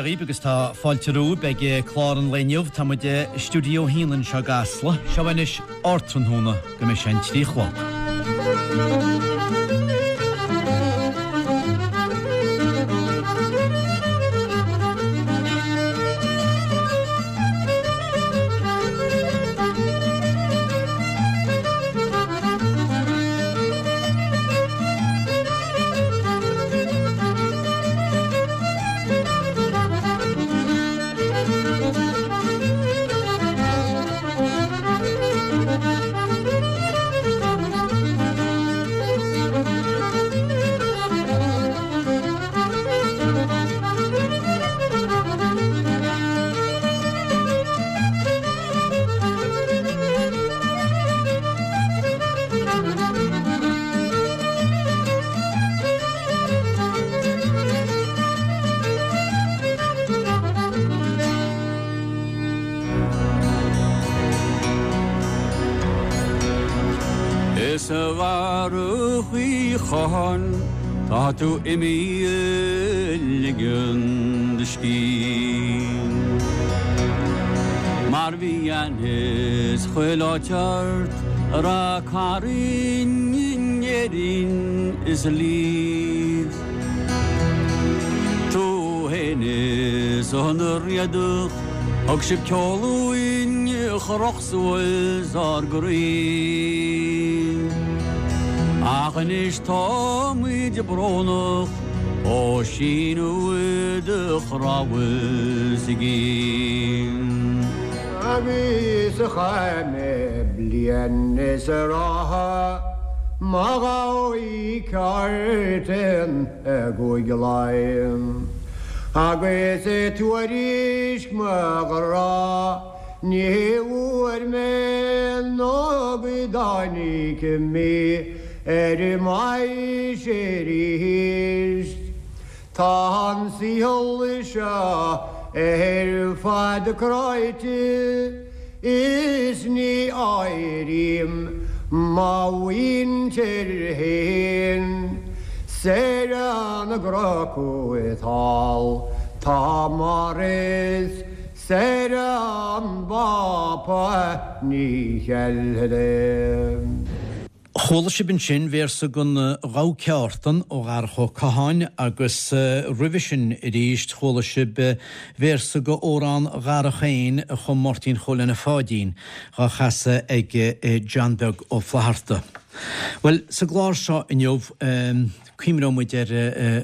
Dia dhaoibh agus tá fáilte romhaibh ag clár an lae inniu. Tá muid i Stiúideo 1 anseo i gCasla. Seo anois ardtráthnóna go mbeidh sé an 3 a chlog. Is a Dharach Uí Chatháin tá tú imithe ag ligean do scíth. Mar bhí aithne 's chuile áit ort a Ráth Cairn in Éirinn is i Leeds. Tú fhéin is an Riadach thug sibh ceol uainn a chroch suas ár gcroí. Ach anois táimid brónach ó síneadh do chnámha is i gcéin. Agus a chaith mé bliain is a ráithe mo ghabhaí ceart in i gCúige Laighean. Agus tuairisc mo ghrá ní bhfuair mé nó go dtáinig mí ar m'aois arís. Tá an saol seo ar fad cráite is ní áirím mo mhuintir fhéin 's ar an gcnoc thall tá Maurice 's ar an bPápa ní cheilfead. Chuala sibh ansin véarsa den Ghabha Ceártan ó Dharach Ó Catháin agus roimhe sin arís chuala sibh véarsa de Amhrán Dharach féin a chum Máirtín Chóil Anna Pháidín, dhá chasadh ag John Beag Ó Flatharta. Bhuel, sa gclár seo inniu cuimhneoidh muid ar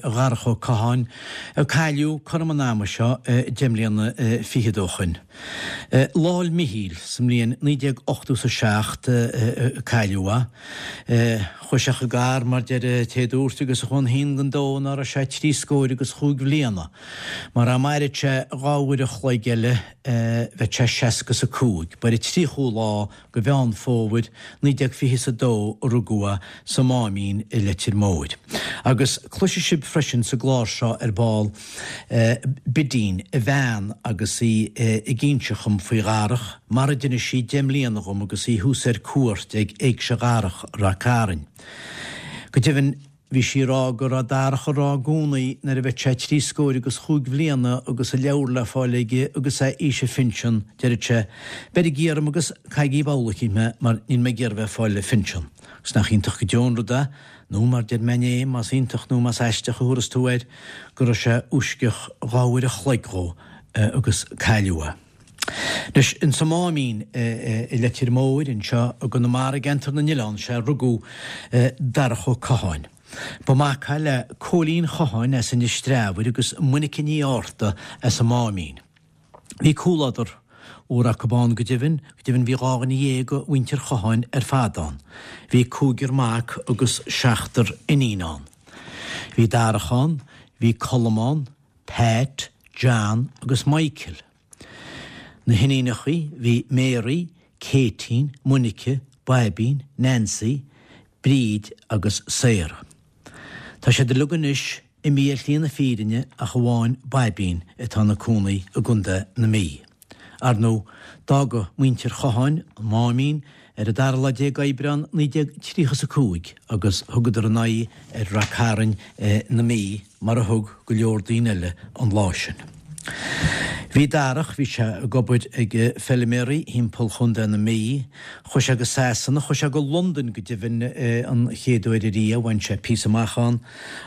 Dharach Ó Catháin, a cailleadh cothrom an ama seo deich mbliana fichead ó shoin. Lá'l Mhichíl sa mbliain 1987 a cailleadh é. Chuaigh sé chun gadhar, mar deir an té a dúirt, agus a chuaigh an haon den dó ná raibh sé trí scóir agus chúig bhliana. Mar dá mairfeadh sé dhá uair a chloig eile bheadh sé seasca is a cúig. Ba ar an tríochú lá de Mheán Fómhair 1922 a rugadh é sa Máimín i Leitir Móir. Agus cloisfidh sibh freisin sa gclár seo ar ball Bidín, a bhean, agus í ag inse dhom faoi Dharach, mar a d'inis sí deich mbliana dhom agus í thuas ar cuairt ag Éigse Dharach, Rath Cairn. Go deimhin, Bhí sí ag rá go raibh Darach ag rá i gcónaí nuair a bheadh sé trí scóir agus chúig bhliana agus a leabhar le fáil aige agus é aois a phinsean, deireadh sé, 'Beirigí orm agus caithigí babhla eicínt mé mar níl mé ag iarraidh bheith ag fáil a phinsean. Agus nach iontach go deo an rud é, nó mar deir mé inné, más iontach nó más aisteach a thabharfas tú air, go raibh sé uisceach dhá uair a chloig dhó agus cailleadh é. Anois, insa Máimín i Leitir Móir, anseo i gConamara i gCeantar na nOileán, sea, rugadh Darach Ó Catháin. Ba mhac é le Cóilín Chatháin as Inis Treabhair agus Monica Ní Fhátharta as an Máimín. Bhí comhluadar úr acu ann go deimhin, go deimhin bhí dhá dhuine dhéag de mhuintir Chatháin ar fad ann. Bhí cúigear mac agus seachtar iníon ann. Bhí Darach ann, bhí Colm ann, Pat, John agus Michael. Na hiníonachaí bhí Mary, Caitín, Monica, Baibín, Nancy, Bríd agus Sarah. Tá siad uilig anois imithe ar shlí na fírinne ach amháin Baibín atá ina cónaí i gContae na Mí. Ar ndóigh, d'fhága muintir Chatháin an Máimín ar an dara lá déag Aibreán 1935 agus thugadar a n-aghaidh ar Rath Cairn na Mí mar a thug go leor daoine eile an lá sin. Bhí Darach, bhí sé ag obair ag feiliméaraí thimpeall Chontae na Mí. Chuaigh sé go Sasana, chuaigh sé go Londain go deimhin an chéad uair ariamh, bhain sé píosa amach ann.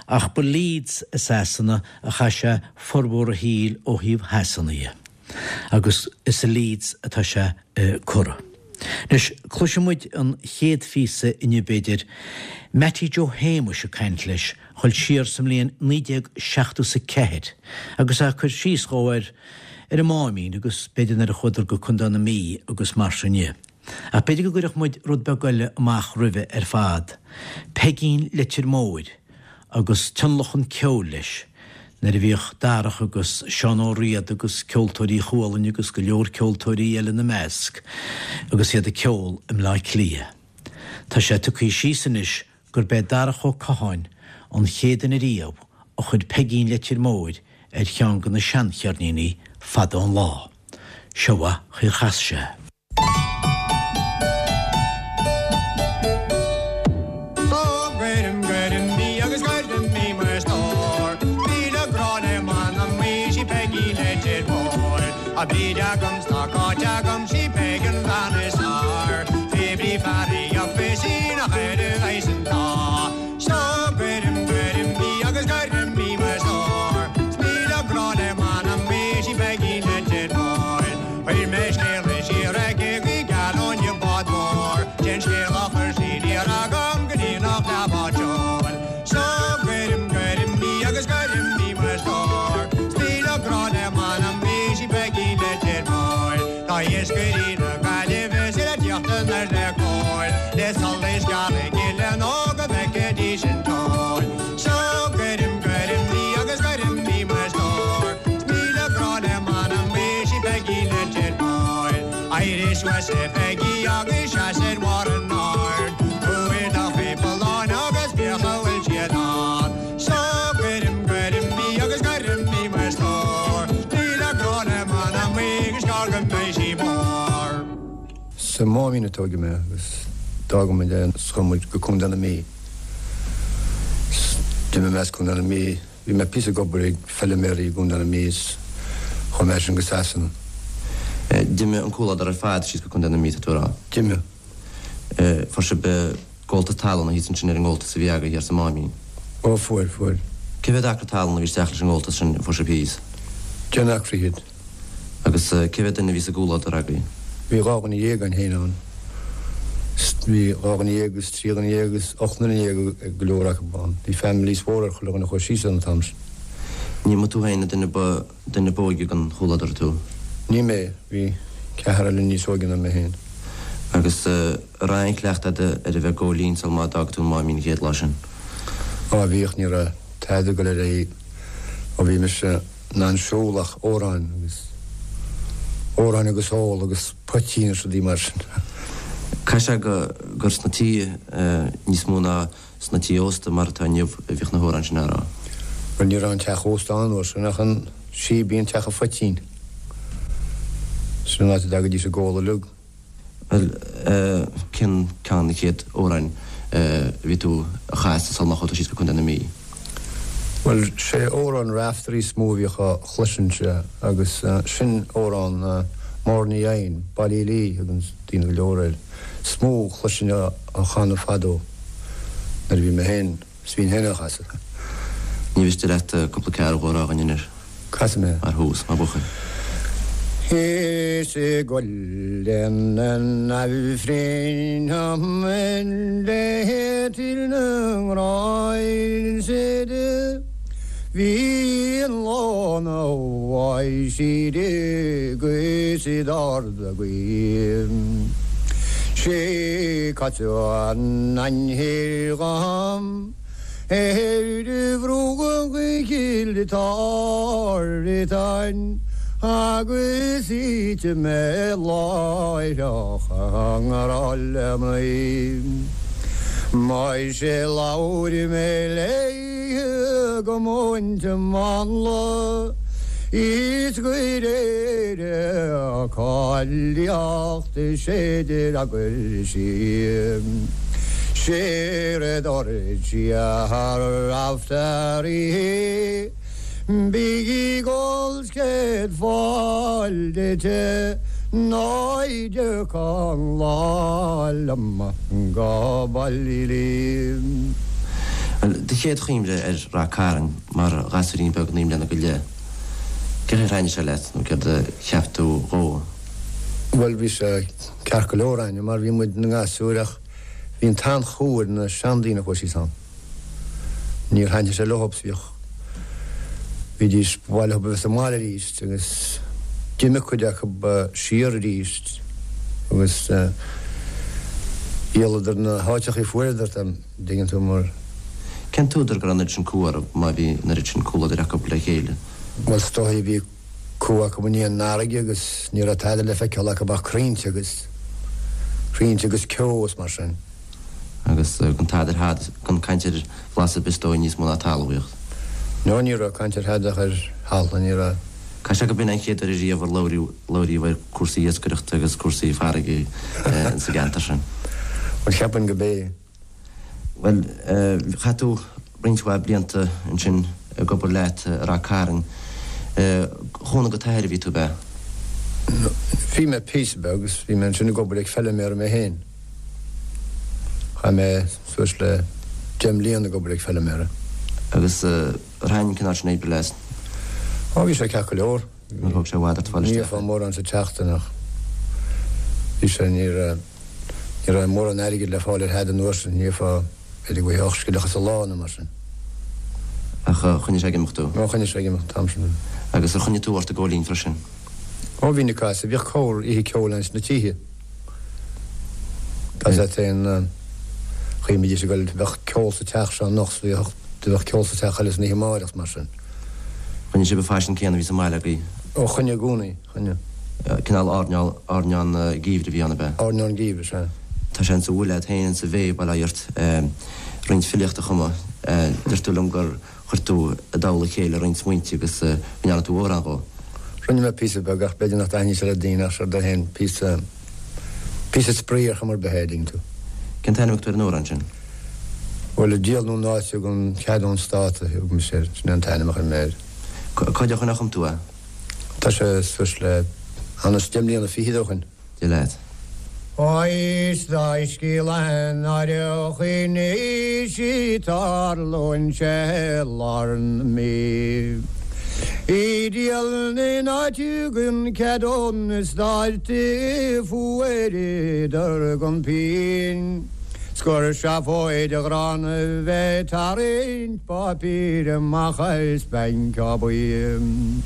Ach ba Leeds i Sasana a chaith sé formhór a shaoil ó thaobh Shasana dhe. Agus is i Leeds atá sé curtha. Anois, cloisfidh muid an chéad phíosa inniu b'fhéidir, Mattie Joe Shéamuis ag caint leis, dhul siar sa mbliain 1974 agus é ag cur síos dhó ar ar an Máimín agus b'fhéidir nuair a chuadar go Contae na Mí agus mar sin dhe. Ach b'fhéidir go gcuirfeadh muid rud beag eile amach roimhe ar fad, Peigín Leitir Móir agus tionlacan ceoil leis nuair a bhíodh Darach agus Seán Ó Riada agus Ceoltóirí Chualann agus go leor ceoltóirí eile ina measc agus iad ag ceol i mBleá Cliath. Tá sé tugtha síos anois gurb é Darach Ó Catháin an chéad duine riamh a chuir Peigín Leitir Móir ar cheann de na seancheirníní fada an lá. Seo an chaoi ar chas sé. Ó gcuirim, gcuirim í agus gcuirim í mo stór. Míle grá le m'anam í, sí Peigín Leitir Móir. Tá Bríd agam 's tá Cáit agam, sí Peig an bhean is fearr. Bhí fear í up is í nach air a bheidh san tá. So cuirim, cuirim í agus cuirim í mo stór. 'S míle grá le m'anam í, sí Peigín Leitir Móir. Chuir mé scéala siar aici go geal ón bád mór. Sin scéal a chuir sí aniar agam go dtí nach leath bád seoil. So cuirim, cuirim í agus cuirim í mo stór. 'S míle grá le m'anam í, sí Peigín Leitir Móir. Tá iascairí na Gaillimhe is iad ag tíocht anoir le cóir, le solas geal ag gile nó go bhfeicfidís an tóir. So cuirim, cuirim í agus cuirim í mo stór. 'S míle grá le m'anam í, sí Peigín Leitir Móir. Éirigh suas a Pheigí agus seas ar bharr an aird. Tabhair do chuid bulláin agus féach a bhfuil siad ann. So cuirim, cuirim í agus cuirim í mo stór. Míle grá le m'anam í agus gearr go mbeidh sí mór. Sa Máimín a tóigeadh mé agus d'fhága muid é 's chuaigh muid go Contae na Mí. 'S d'imigh mé as Contae na Mí. Bhí mé píosa ag obair ag feiliméaraí i gContae na Mí is chuaigh mé as sin go Sasana. D'imigh an comhluadar ar fad síos go Contae na Mí, tá tú a rá? D'imigh. Fuair sibh gabháltas talún thíos ansin ar an ngabháltas a bhí agaibh thiar sa Máimín? Ó fuair, fuair. Cé mhéad acra talún a bhí isteach leis an ngabháltas sin a fuair sibh thíos? 10 n-acra fhichead. Agus cé mhéad duine a bhí sa gcomhluadar agaibh? Bhí 12 dhuine againn féin ann. Bhí 12 dhuine agus 13 dhuine agus 18 nduine ag go leor acu ann. Bhí families mhóra ar chuile dhuine a chuaigh síos ann an t-am sin. Ní mba tú féin an duine ba duine ba óige den chomhluadar tú? Ní mé. Bhí ceathrar eile níos óige ná mé féin. Agus an raibh aon chleachtadh agat ar a bheith ag gabháil fhoinn sul má d'fhág tú an Máimín an chéad lá sin? Á bhíodh, ní raibh tada ag dul ar aghaidh ó bhí mise in ann siúl ach amhráin agus amhráin agus ól agus poitín is rudaí mar sin. Caithfidh sé go gur sna tithe níos mó ná sna tithe ósta mar atá inniu a bhíodh na hamhráin sin á rá. Bhuel ní raibh an teach ósta ann an uair sin ach an síbín, teach an phoitín. Sin an áit a dtagaidís ag ól uilig. Bhuel, cén ceann de na chéad amhráin a bhí tú a chasadh sul má chuaigh tú síos go Contae na Mí? Bhuel, sé amhrán Raiftearaí is mó a bhíodh á chloisint agus sin amhrán Máire Ní Eidhin, Ballylee a thuganns daoine go leor air, is mó a chloisinn á chanadh fadó nuair a bhí mé féin, 's bhínn féin á chasadh. Ní mhiste leat cúpla ceathrú a rá dhúinn anois. Casfaidh mé. Mar thús, mar bhuachaill. Is i gCuileann an Aifrinn le tír na nGrást bhí an lá na bhfaighidh agus d'ard a gaoth. Sé caite an ainchir dhom. Ar bhruach Chill Tartáin agus thit mé láithreach i ngrá le mnaoi. Muise labhair mé léi go múinte mánla is go réir a cáilíocht sé d'fhreagair sí. Séard a dúirt sí a Raiftearaí. Bígí ag ól 's céad fáil duit ná i dtiocfadh lá liom go Ballylee. Bhuel, do chéad chuimhne ar Rath Cairn mar ghasúirín beag 9 mbliana go leith, cé chaoi ar thaitnigh sé leat nó céard a cheap tú dhó? Bhuel, bhí sé ceart go leor a'inne mar bhí muid ina ngasúir ach bhí an t-an-chumha ar na seandaoine a chuaigh síos ann. Níor thaitnigh sé leothub 's bhíodh, bhídís, ba mhaith leothub a bheith sa mbaile arís agus d'imigh cuid acub siar arís agus dhíoladar na háiteachaí a fuaireadar, an dtuigeann tú, mar. Cén t-údar go raibh an oiread sin cumha orthu má bhí an oiread sin comhluadair acub le chéile? Bhuel, is dóigh, bhí cumha acub i ndiaidh an fharraige agus ní raibh tada le feiceáil acub ach crainnte agus, crainnte agus ceo is mar sin. Agus gan tada ar thada, gan caint ar bhlas ar bith is dóigh níos mó ná talmhaíocht. No, ní raibh caint ar thada ach ar thalamh, ní raibh. Caithfidh sé go b'in an chéad uair ariamh ar labhraíodh, labhraíodh ar cúrsaí iascaireachta agus cúrsaí farraige sa gceantar sin. Bhuel, cheapfainn go b'é. Bhuel, chaith tú roinnt mhaith blianta ansin ag obair leat i Rath Cairn. Chúnamh go t'athair a bhí tú, ab ea? Bhí mé píosa beag agus bhí mé ansin ag obair ag feiliméara mé féin. Chaith mé suas le deich mbliana ag obair ag feiliméara. Agus ar thaitin an cineál sin oibre leat? Ó, bhí sé ceart go leor. Níor thóg sé i bhfad ort fáil isteach. Ní gheofá mórán sa tseachtain ach bhí sé, ní raibh, ní raibh mórán airgid le fáil ar thada an uair sin, ní gheofá b'fhéidir go bhfaighfeá 8 scilleacha sa lá nó mar sin. Ach choinnigh sé ag imeacht thú? Ó, choinnigh sé ag imeacht an t-am sin. Agus ar choinnigh tú ort i gcóilín freisin? Ó, bhínn ag casadh, bhíodh corr oíche ceoil ann sna tithe. Tá sé féin, chaoi a mbídís ag goil, bheadh ceol sa teach seo anocht 's bhíodh, bheadh ceol sa teach eile san oíche amáireach 's mar sin. Choinnigh sibh an faisean céanna a bhí sa mbaile agaibh? Ó, choinnigh i gcónaí, choinnigh. Cineál airneál, airneán geimhridh a bhí ann, ab ea? Airneán geimhridh, sea. Tá sé insa bhfuil agat féin, insa bhféith, bail ó Dhia ort, roinnt filíochta a chumadh. Deir tú liom gur chuir tú i dtoll a chéile roinnt smaointe agus go ndearna tú amhrán dhó. Rinne mé píosa beag ach b'fhéidir nach dtaitníonn sé le daoine ach séard é féin, píosa, píosa spraoi ar chuma ar bith é, an dtuigeann tú. Cén t-ainm a thug tú ar an amhrán sin? Bhuel, ag díol na n-áite gan cead ón Stát a thug mise air, sin é an t-ainm a chuir mé air. Cá fhad ó shin a chum tú é? Tá sé suas le anois deich mbliana fichead ó shin. Dia leat. Is gaisce náireach anois í tarlaíonn sé i lár na Mí. I díol na n-áite gan cead ón Stát fuaireadar gan pingin. 'S gur seafóid ghránna bheith tarraingt páipéir amach as banc ar bith.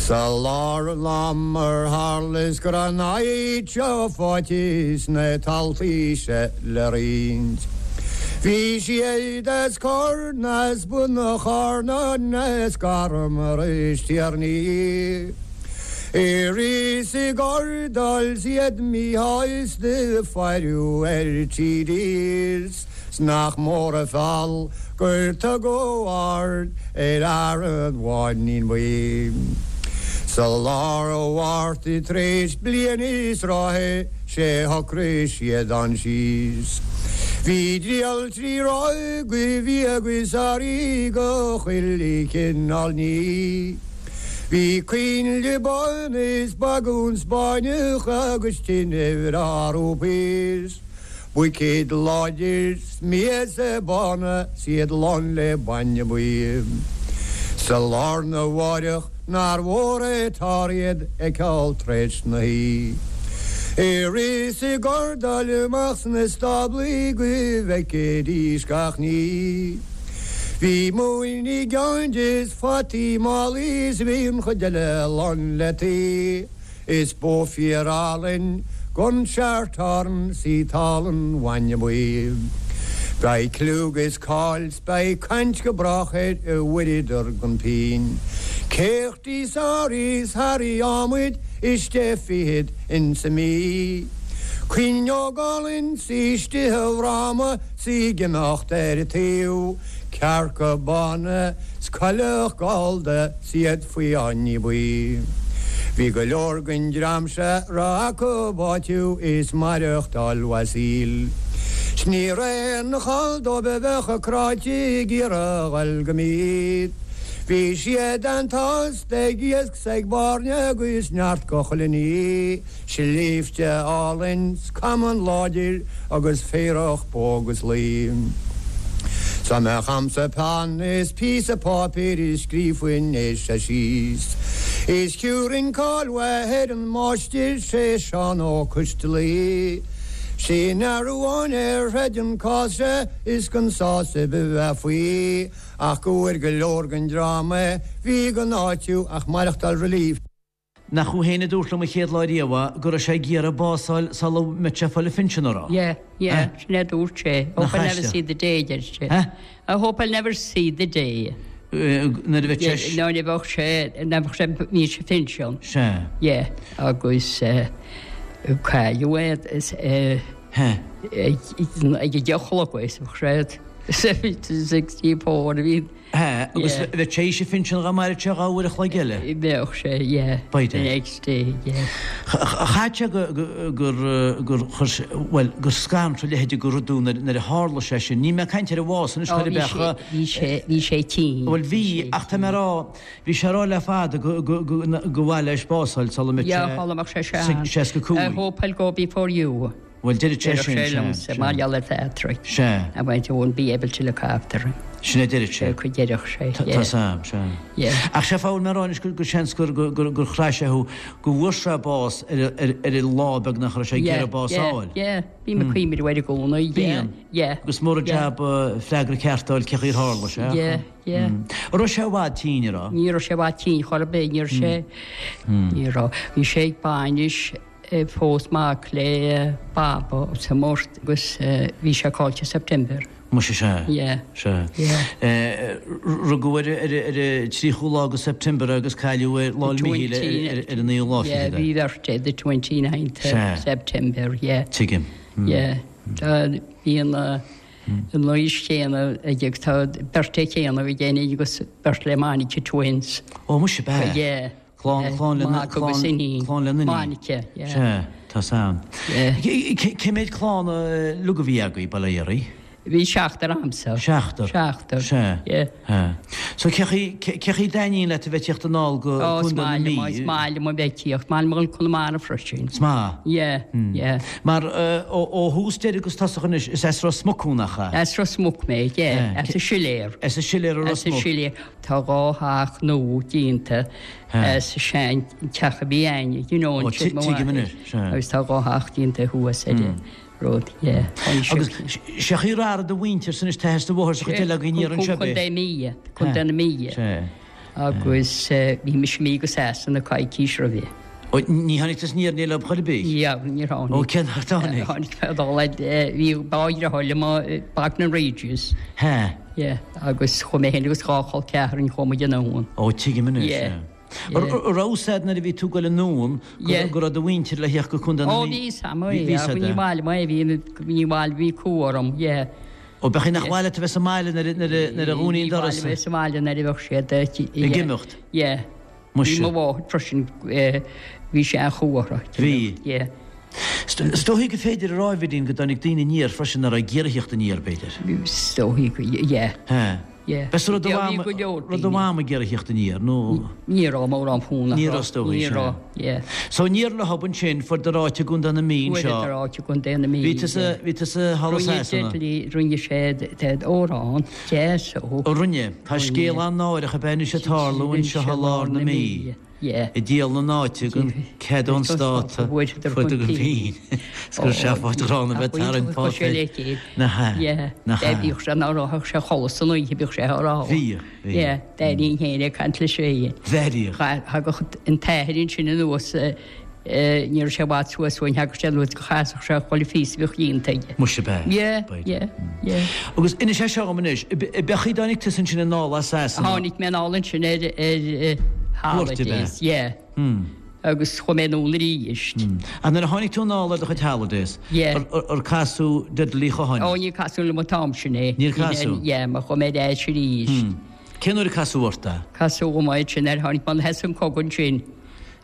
Sa lár an ama ar tharla is go raibh an áit seo faighte is na taltaí seo le roinnt. Bhí siad as Corn as Bun an Charnáin as Garmar is Tiarnaí. I rith 's i gcordáil 's iad míshásta faireadh ar TDs 's nach mór an feall gur tugadh aird ar fhear an bháinín bhuí. Sa lár an Mhárta tar éis bliain is ráithe sé shocraigh siad ann síos. Bhí triall trí ráithe go bhia agus earraí go chuile chineál ní. Bhí coinnle bána is bagún Spáinneach agus tine bhreá rúipís, buicéid láidir 's miasa bána 's iad lán le bainne buí. Sa lá arna mháireach nár mhór é t-ár iad a fheiceáil tar-éis na hoíche. I rith 's i gcordáil amach sna stáblaí go bhfeicfidís gach ní. Bhí móin i gceann de 's fataí i málaí 's bhí an chuid eile lán le tuí. Is bó fíor álainn gon Shorthorn 's í tál an bhainne buí. Beidh cliú 'gus cáil 's beidh caint go brách air a bhfuaireadar gan pingin. Céachtaí sáraí 's harraí adhmaid is deich fichead insa mí. Cuinneog álainn 's í istigh i bhfráma 's í ag imeacht ar an taobh, cearca bána 's coileach gallda 's iad faoi fháinní buí. Bhí go leor den dream seo a raibh acu áitiú is maireachtáil mhaith saoil. 'S ní raibh aon chall dóibh a bheadh cráite ag iarraidh a dhul go Meath. Bhí siad an-tost ag iasc 's ag bairnigh agus neart go chuile ní, Sléibhte álainn 's camán láidir agus féarach bó agus lao. 'S dá mbeadh a'msa peann is píosa páipéir is scríobhfainn é seo síos. Is thiúrfainn cáil mhaith ar an máistir sé Seán Ó Coistealaí. Sin fhear amháin a throid an cás seo is gan sásamh a bheith faoi ach go bhfuair go leor den dream a bhí gan áitiú ach maireachtáil relief. Nach thú féin a dúirt liom an chéad lá riamh go raibh sé ag iarraidh bás a fháil sula mbeadh sé ag fáil a phinsean, an raibh? Yeah, yeah, sin é a dúirt sé. Hope I'll never see the day, a deir sé. I hope I'll never see the day. Nuair a bheadh sé. Nuair a bheadh sé, nuair a bheadh sé, bhí sé phinsean. Sea. Yeah, agus cailleadh é ag a deich a chlog is bheadh sé 64 a bhí. Hea, agus bheadh sé tar éis a phinsean dá mairfeadh sé 2 uair a chloig eile. Bheadh sé, yeah. B'fhéidir. The next day, yeah. Chaithfeadh sé gur, gur chuir sé, bhuel, gur scanradh a leithéide de rud thú nuair a tharla sé sin. Níl mé ag caint ar a bhás anois, chor ar bith ach. Bhí sé, bhí sé tinn. Bhuel, bhí, ach tá mé ag rá, bhí sé ag rá le fada go, go, go, go mhaith leis bás a fháil sula mbeadh sé. Yeah, sula mbeadh sé sean. 65. I hope I'll go before you. Bhuel, deireadh sé sin, sea, sea. Mar gheall ar Phatrick. Sea. I won't, I won't be able to look after him. Sin a deireadh sé. Go deireadh sé, yeah. Tá's a'm, sea. Yeah. Ach sé fáth a bhfuil mé ag rá anois gur seans gur, gur, gur, gur chraith sé thú, go bhfuair sé bás ar, ar, ar an lá beagnach a raibh sé ag iarraidh bás a fháil. Yeah, yeah. Bím ag cuimhneamh air i gcónaí, yeah. Bíonn. Yeah. Agus mór an jab freagra ceart a fháil cén chaoi ar tharla sé. Yeah, yeah. An raibh sé i bhfad tinn, an raibh? Ní raibh sé i bhfad tinn chor ar bith, ní raibh sé, ní raibh. Bhí sé ag bainis Phós mac le Baba sa mBort agus bhí sé caillte September. Muise sea. Yeah. Sea. Yeah. Rugadh ar ar an 30ú lá de September agus cailleadh ar Lá 'le Míchíl ar an naoú lá fichead. Yeah, bhí beirt é the 29th Sea. September, yeah. Tuigim. Yeah. Tá bhí an an aois chéanna aige tá beirt é chéanna bhí déanamh agus beirt le Monica twins. Ó muise b'ea. Yeah. Clann, clann le, Mac agus clann, iníon. clann le n-iníon. Monica, yeah. Sea, tá's a'm. Yeah. Cé mhéad clann uilig a bhí agaibh, bail ó Dhia oraibh? Bhí seachtar a'msa. Seachtar? Seachtar. Sea. Yeah. Sea. So cé chaoi, cé chaoi a dtaitníonn leat a bheith ag tíocht anall go Ó, is Contae na maith Mí? liom, is maith liom a bheith ag tíocht, maith liom a dhul Conamara freisin. Is maith? Yeah, yeah. Mar ó, ó thús deireadh agus tosach anois, is as Ros Muc thú, nach ea? As Ros Muc mé, yeah, as an Siléar. As an Siléar i Ros As an Muc. Siléar. Tá 2 theach nua déanta as an sean teach a bhí a'inne, you know, an Tuigim anois, sea. Agus tá 2 theach déanta thuas ar an rud, yeah. Agus sé chaoi a raibh do mhuintir san is t-athair is do mháthair sa chuid eile againn aniar anseo b'é? Contae Mí, Contae na Mí. Sea. Agus bhí mise imithe go Sasana coicís roimhe. Ó, ní tháinig tusa aniar leo chor ar bith? Yeah, níor tháinig. Ó, cén uair a tháinig? Tháinig mé dul le, bhí dhá dheartháir liom i Bognor Regis. Hea. Yeah, agus chuaigh mé féin agus 2 chol ceathrainn, chuaigh muid anonn. Ó, tuigim anois, Yeah. yeah. An raibh fhios a'd nuair a bhí tú ag goil anonn go raibh do mhuintir le theacht go Contae na Ó, Mí? bhí fhios a'm, Bhí yeah, fhios a'd, ní eh? maith liom é, bhí, ní maith liom, bhí cumha orm, yeah. Ó, b'é nach maith leat a bheith sa mbaile nuair a nuair a dhúnaí an doras. Ní maith liom a bheith sa mbaile nuair a bheadh siad ag imeacht. Yeah. Muise. Bhí mo mháthair freisin, bhí sí an-chumha. Bhí. Yeah. Is dóichí gur féidir a rá, a Bhidín, go dtáinig daoine aniar freisin nach raibh ag iarraidh theacht aniar, b'fhéidir. Is dóichí go, yeah. Hea. Yeah. B'é rud Yeah, bhí go leor raibh do mham ag iarraidh theacht aniar, nó? Ní raibh mórán fonn Ní raibh, is dóichí, Ní sea. raibh, yeah. So aniar leo ansin, fuaireadar áit i gContae na Mí anseo. Fuaireadar áit i gContae na Mí. Bhí tusa, bhí tusa thall i Rinne Sasana. Dudley, rinne sé amhrán deas ó. Ó rinne. Tá scéal an-náireach ab ea anois ag tarlú anseo i lár na Mí. Yeah. Ag díol na n-áite gan cead ón Stát a fuaireadar chun pinn. Is gur seafóid ghránna a bheith ag tarraingt páipéir. Nach ea? Nach ea? Bhíodh sé ná raibh sé a chodladh san oíche, bhíodh sé á rá. Bhíodh, bhíodh. Yeah, d'éirínn féin ag caint leis féin. Bheiríodh. Thagadh an t-athair ansin anuas, ní raibh sé i bhfad suas uainn, thagadh sé anuas go chasadh sé chuile phíosa a bhíodh déanta aige. Muise ab ea? Yeah, yeah, yeah. Agus inis é seo dhom anois, ab é chaoi dtáinig tusa ansin anall as Sasana? Tháinig mé anall ansin ar ar holidays, yeah. Agus chuaigh mé anonn arís. Ach nuair a tháinig tú anall ar do chuid holidays, Yeah. ar casadh Dudley Uí Chatháin? Ó, níor casadh liom an t-am sin é. Níor casadh? Yeah, mar chuaigh mé ar ais arís. Cén uair a casadh ort é? Casadh dhom é ansin nuair a tháinig mé, thosaigh an cogadh ansin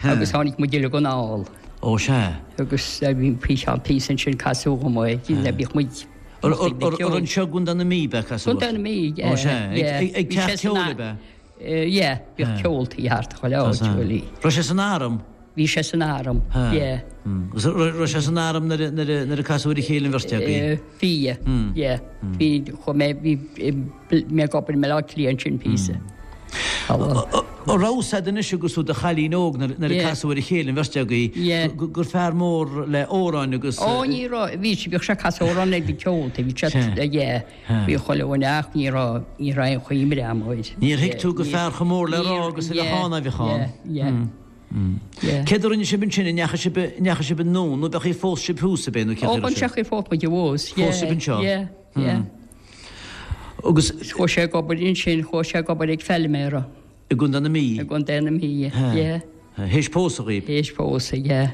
agus tháinig muid uilig anall. Ó, sea. Agus bhí píosa píosa ansin casadh dhom é, bhíodh muid Ar anseo i gContae na Mí ab ea casadh ort? Contae na Mí, yeah. Ó, sea. Ag teach ceoil ab ea? Yeah, bhíodh ceoltaí thart chuile áit, bhuel. Raibh sé san arm? Bhí sé san arm, yeah. Agus raibh sé san arm nuair a casadh ar a chéile an bheirt agaibh? Bhí, yeah. Bhí, chuaigh mé, bhí mé ag obair i mBaile Átha Cliath ansin píosa. An raibh fhios a'd anois agus tú i do chailín óg nuair a casadh ar a chéile an bheirt agaibh gur fear mór le amhráin agus. Ó ní raibh, bhí, bhíodh sé ag casadh amhrán ag na ceoltaí, bhí sé, yeah. Bhí chuile dhuine ach ní raibh, ní raibh aon chuimhne a'm air. Níor thuig tú gur fear chomh mór le rá agus a bheadh ann a bheadh ann. Yeah, yeah, yeah. Céard a rinne sibh ansin, an ndeachaigh sibh, an ndeachaigh sibh anonn nó b'é phós sibh thuas ab é nó cé Ó, an ndeachaigh phós muid abhus, yeah. Phós sibh anseo? Yeah, yeah. Agus. Chuaigh sé ag obair ansin, chuaigh sé ag obair ag feilméara. I gContae na Mí? I gContae na Mí, yeah. Théis pósadh dhaoib? Théis pósadh, yeah.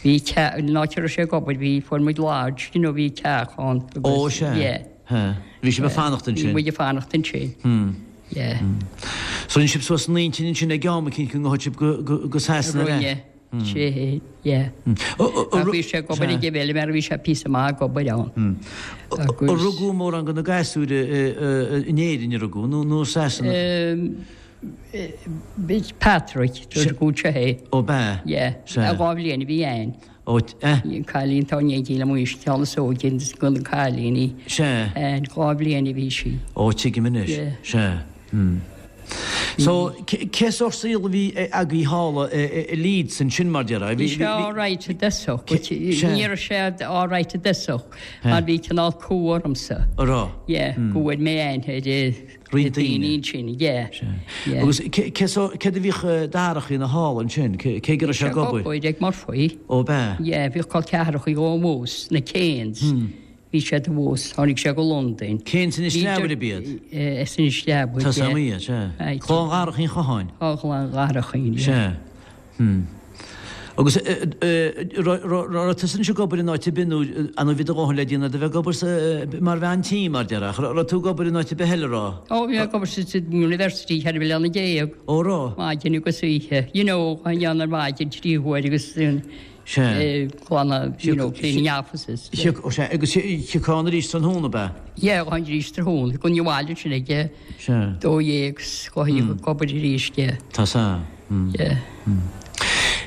Bhí teach, an áit a raibh sé ag obair, bhí, fuair muid lodge, you know, bhí teach ann. Ó, sea. Yeah. Bhí sibh ag fanacht ansin? Bhí muid ag fanacht ansin, yeah. So rinne sibh suas an intinn ansin ag am eicínt go ngabhfadh sibh go Sasana le? Rinne, sea, yeah. Ach bhí sé ag obair ag an bhfeilméara, bhí sé píosa maith ag obair ann. Ar rugadh mórán de na gasúir in Éirinn a rugadh nó i Sasana? Patrick, rugadh anseo é. Ó b'ea? Yeah. Sea. 2 bhliain a bhí Ann. Ó, eh. Bhí an cailín atá in éindí liom anois, ceann is óige de na cailíní. Sea. Ann, 2 bhliain a bhí sí. Ó, tuigim anois. Yeah. Sea. Hmm. So, cé sórt saol a bhí agaibh thall i Leeds ansin mar déarfá? Bhí sé alright i dtosach, but ní raibh sé alright i dtosach mar bhí cineál cumha ormsa. An raibh? Yeah, go bhfuair mé aithne ar Roinnt daoine. ansin, yeah. Yeah. Agus céard a bhíodh Darach a dhéanamh thall ansin? Cé go raibh sé ag obair? Bhí sé ag obair ag Murphy. Ó b'ea? Yeah, bhíodh col ceathracha dhó abhus, na Kanes. Bhí siad abhus, tháinig sé go Londain. Kanes Inis Leabair ab iad? As Inis Leabair, yeah. Tá sam iad, sea. Clann Dharach Uí Chatháin? Clann Dharach, yeah. Sea. Hmm. Agus raibh tusa anois ag obair in áit ar bith nó an bhí do dhóthain le déanamh de bheith ag obair mar bhean tí mar déarfá? Raibh tú ag obair in áit ar bith eile raibh? Ó bhí mé ag obair sa University 14 bliana. Ó raibh? Maidin agus oíche. You know, an dhéanamh ar maidin 3 huair agus Sea. glanadh, you know, cleaning offices. Ó sea, agus thiocfá ann arís tráthnóna ab ea? Yeah, ann arís tráthnóna. Gabhainn abhaile ansin ag a Sea. 12 's ag obair arís, yeah. Tá sea. Yeah.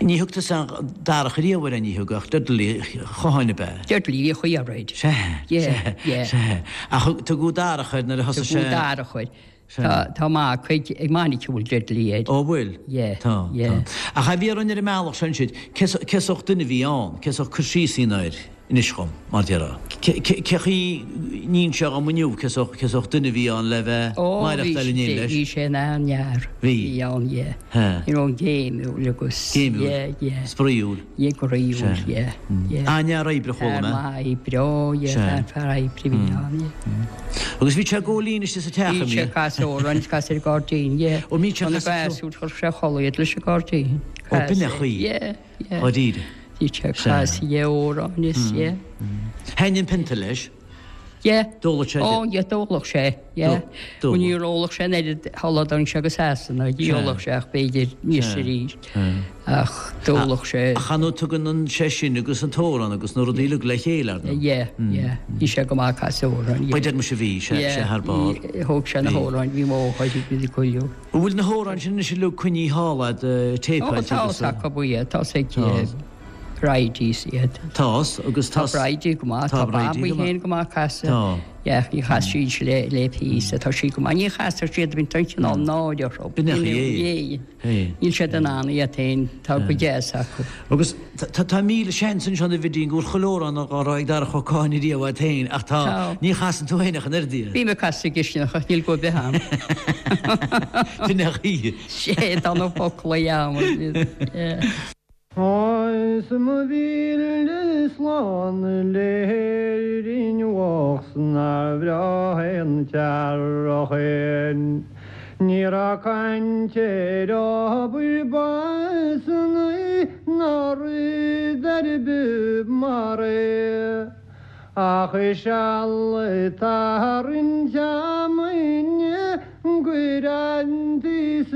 Ní thug tusa Darach riamh air, ní thug, ach Dudley Chatháin ab ea? Dudley a bhíodh air. Sea, Yeah, sea, yeah. sea. Ach tugadh Darach air nuair a thosaigh sé. Tugadh Darach air. Sea. Tá mac ag Monica a bhfuil Dudley air. Ó bhfuil? Yeah, Tá, yeah. tá. Ach a bhí orainn ar an mbealach seo ansin, cé sórt duine a bhí ann? Cé sórt cur síos a dhéanamh air? Inis dhom, mar déarfá. Cé chaoi n-inseofá dhom inniu cé sórt duine a bhí ann le bheith Ó, bhí maireachtáil in éindí leis? bhí sé ina an-fhear. Bhí? Bhí ann, yeah. He. You know, géimiúil agus. Géimiúil? Yeah, yeah. Spraíúil? Yeah, groíúil, Sea. yeah, yeah. An-fhear oibre, chuala Fear mé. maith oibre, ó, yeah, Sea. fear, fear oibre a bhí ann, yeah. Agus bhí sé ag gabháil fhoinn istigh sa teach, Bhí an sé mbíodh? ag casadh amhráin, is casadh ar an gcairdín, yeah. Ó, mbíodh sé ag Tá na casadh ceoil? gasúir, chuir sé a chodladh iad leis an gcairdín. Ó, b'in é an chaoi. Yeah. Dháiríre. Bhí sé ag casadh amhráin is yeah. Thaitnigh an pionta leis? Yeah. D'óladh sé Ó yeah, d'óladh sé, yeah. D'óladh. Ó níor ólfadh sé an oiread sula dtáinig sé go Sasana, ní ólfadh sé ach b'fhéidir níos arís. Ach d'ólfadh sé. Ach ar ndóigh tugann sé sin agus an t-amhrán agus na rudaí uilig le chéile, ar ndóigh. Yeah, yeah. Bhí sé go maith ag casadh amhráin, yeah. Ba deir mise bhí sé, sé thar barr. Yeah, thóg sé na hamhráin, bhí mo mháthair ag goil. An bhfuil na hamhráin sin anois uilig coinnithe thall a'd, téipeáilte Ó, agus. tá acu iad, tá ag Bridie iad. Tá, agus Tá tá. Bridie go maith, tá Bridie Babaí go maith. féin go maith ag casadh. Tá. Yeah, ní chas siad le le píosa, tá sí go maith. Ní chastar siad, bíonn tá cineál náire orthu. B'in é é. É. Níl siad in ann iad féin, tá go deas acu. Agus tá 1000 seans anseo a Bhidín go bhfuil chuile amhrán á rá ag Darach Ó Catháin ariamh agat féin ach tá, Tá. ní chasann tú féin ach an oiread iad. Bím ag casadh sa gcistineach ach níl guth ar bith a'm. B'in é an chaoi. Sé, tá na foclaí a'm. Yeah. Is mo mhíle slán le hÉirinn bhocht 's nár bhreá an t-earrach é. Ní raibh caint ar obair b'ansa ná rud ar bith mar é. Ach seal ag tarraingt fheamainne go raibh an taos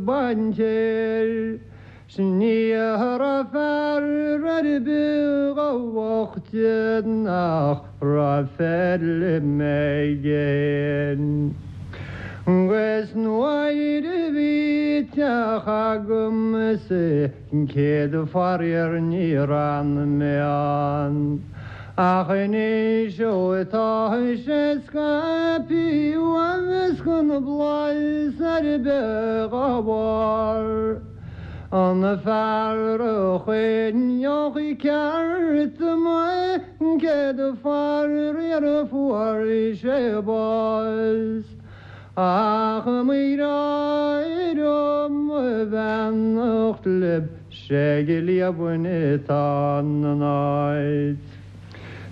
bainte air. 'S ní raibh fear ar bith dá bhoichte nach raibh feilm aige. 'Gus nuair a bhí teach agamsa an chéad faraor níor fhan mé ann. Ach anois ó tá sé scaipthe uaim is gan blas ar bith dhá bharr. An fear a choinneodh ceart mé an chéad faraor fuair sé bás. Ach mo ghrá mo bheannacht libh 'sé ag Liamhain atá an áit.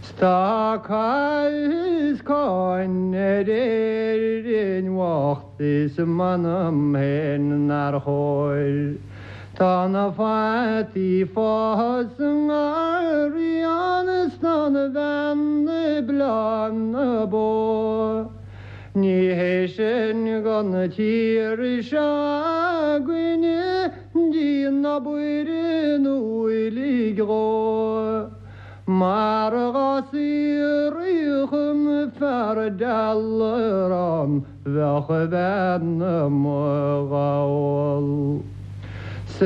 'S tá cath is cáin ar Éirinn bhocht is m'anam féin nár chóir. Tá na fataí fás sa ngarraí ann is tá na beanna ag bleá na bó. Ní hé sin don tír seo againne díon obair an uilig dhó. Mar dhá saothraíodh an fear dealrán bheadh a bhean amuigh dhá ól. 'S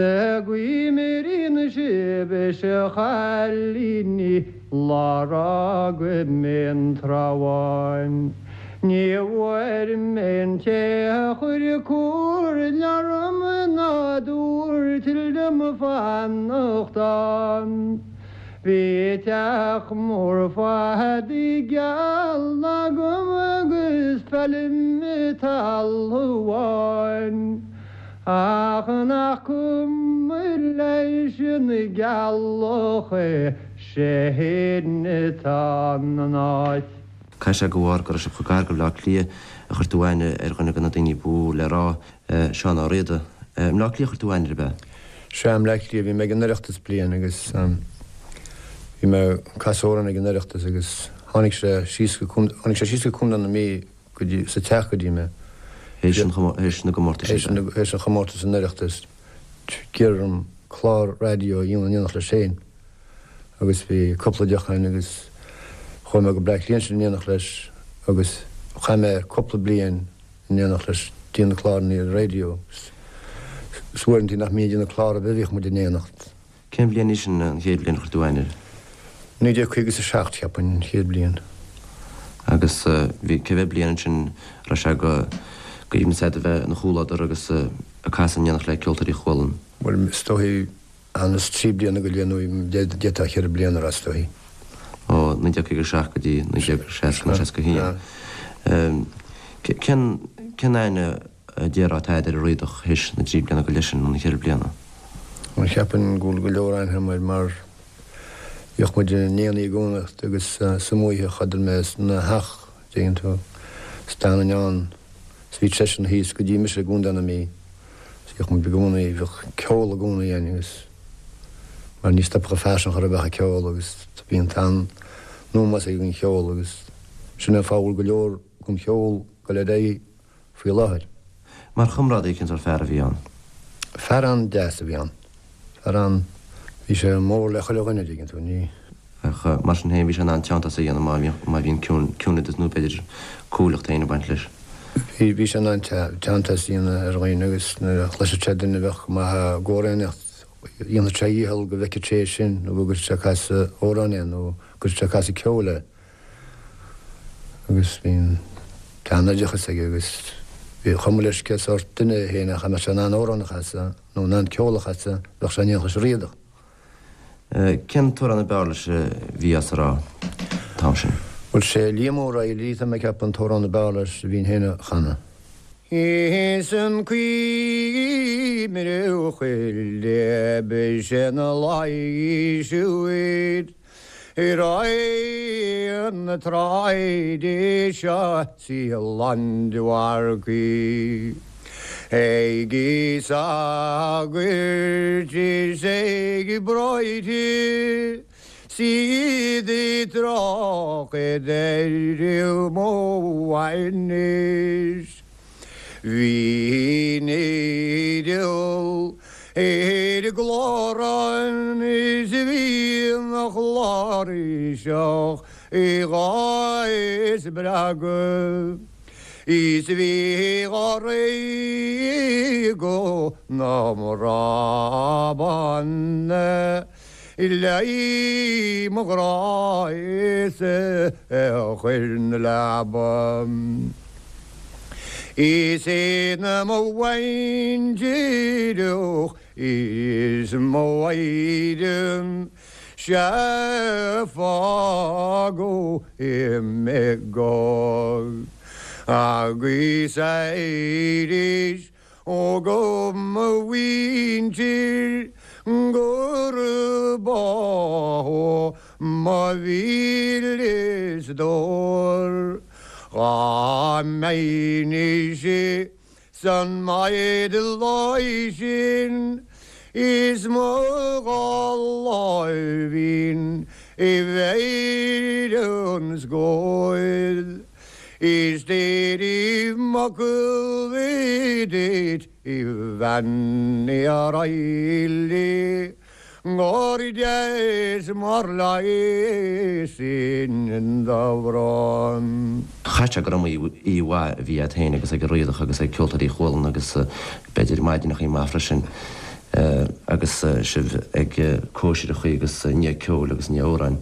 guím ar aon sibh is a chailíní lá fhágfaidh mé an Trá Bháin. Ní bhfuair mé an té a chuir comhairle orm ná a dúirt liom fanacht ann. Bhí teach mór fataí geall agam agus feilm talamh amháin. Ach nach cuma leis an gceallach é, 'sé fhéin atá in áit. Caithfidh sé de bharr go raibh sibh chomh gar go Bleá Cliath a chuir tú aithne ar dhuine de na daoine ba mhó le rá, Seán Ó Riada. I mBleá Cliath a chuir tú aithne air, ab ea? Sea, i mBleá Cliath. Bhí mé ag an Oireachtas bliain agus bhí mé ag casadh amhrán ag an Oireachtas agus tháinig sé síos go, tháinig sé síos go Contae na Mí go dtí, sa teach go dtí mé. Théis an, théis na gcomórtais ab ea? Théis an chomórtais san Oireachtas. D'iarr orm clár raidió a dhéanamh in éineacht leis féin agus bhí cúpla deoch againn agus chuaigh mé go Bleá Cliath ansin in éineacht leis agus chaith mé cúpla bliain in éineacht leis ag déanamh cláranna ar an raidió agus uaireanta nach mbínn ag déanamh clár ar bith bhíodh muid in éineacht. Cén bhliain í sin, an chéad bhliain a chuir tú aithne air? 1957, cheapfainn, an chéad bhliain. Agus bhí, cé mhéad bliain ansin a raibh sé go aoibhneas agat a bheith ina chomhluadar agus ag casadh in éineacht le Ceoltóirí Chualann? Bhuel, is dóichí, anuas trí bliana go leith nó d'fhéadfá cheithre bliana a rá, is dóichí. Ó 1957 go dtí 1960 nó 61. Cén, cén aithne a déarfá atá agat ar an Riadach théis na dtrí bliana go leith sin, nó na ceithre bliana? Bhuel, cheapfainn go bhfuil go leor aithne agam air mar bhíodh muid in éindí i gcónaí agus sa oíche chodail mé ina theach, dtuigeann tú, is d'fhanainn ann is bhí seisean thíos go dtí mise i gContae na Mí is bhíodh muid i gcónaí, bhíodh ceol i gcónaí againn agus mar ní stopfadh an fear sin chor ar bith ag ceol agus bhí an t-an-ómós aige don cheol agus sin é an fáth a bhfuil go leor den cheol ag dul ar aghaidh faoi láthair. Mar chomrádaí, cén sórt fear a bhí ann? Fear an-deas a bhí ann. Fear an-, bhí sé mór le chuile dhuine, dtuigeann tú, ní. Ach mar sin féin, bhí sé in ann teanntas a dhéanamh má bhí, má bhí an ciúin, ciúineadas nó b'fhéidir cúthaileacht féin ag baint leis. Bhí, bhí sé in ann teanntas a dhéanamh ar dhaoine agus nuair a chloisfeadh sé duine a bheadh go maith ag amhránaíocht, dhéanfadh sé a dhícheall go bhfeicfeadh sé é sin nó go gcuirfeadh sé ag casadh amhráin é nó go gcuirfeadh sé ag casadh ceoil é. agus bhí an t-an-oideachas aige agus ba chuma leis cé sórt duine é féin ach dá mbeadh sé in ann amhrán a chasadh nó in ann ceol a chasadh, bheadh sé in éineacht leis an Riadach. Cén t-amhrán ab fhearr leis a bhí as a rá an t-am sin? Bhuel, sé Liam O'Reilly, tá mé ag ceapadh, an t-amhrán ab fhearr leis a bhínn féin a chanadh. Is an cuimhne chuile b'shin a laois Ar aghaidh na tráide seo 's í lán de mharcaigh Ag sagairt is ag bráithre 's iad ag trácht ar mo bhainis. Bhí an fhidil ar an gclárán is bhí an chláirseach dhá spreagadh. Is bhí dháréag go na mBrabán le mo ghrá is a chuir na leaba. Is é na mo bhaintreach is mo mhaighdean 'Sea fágadh mé go agus arís ó go mo mhuintir gurb ó mo mhíle stór dhá mbeinnse San maighdean sin is mo dhá láimhín i bhfeighil an scóir is déirim m'fhocal duit a Bhean Uí Raghallaigh gur deas mar leigheas sin do bhrón. Chaithfeadh sé gur iomaí oíche mhaith a bhí agat féin agus ag an Riadach agus ag Ceoltóirí Chualann agus b'fhéidir maidineachaí maith freisin agus sibh ag cóisireachaí agus i ndiaidh ceoil agus i ndiaidh amhráin.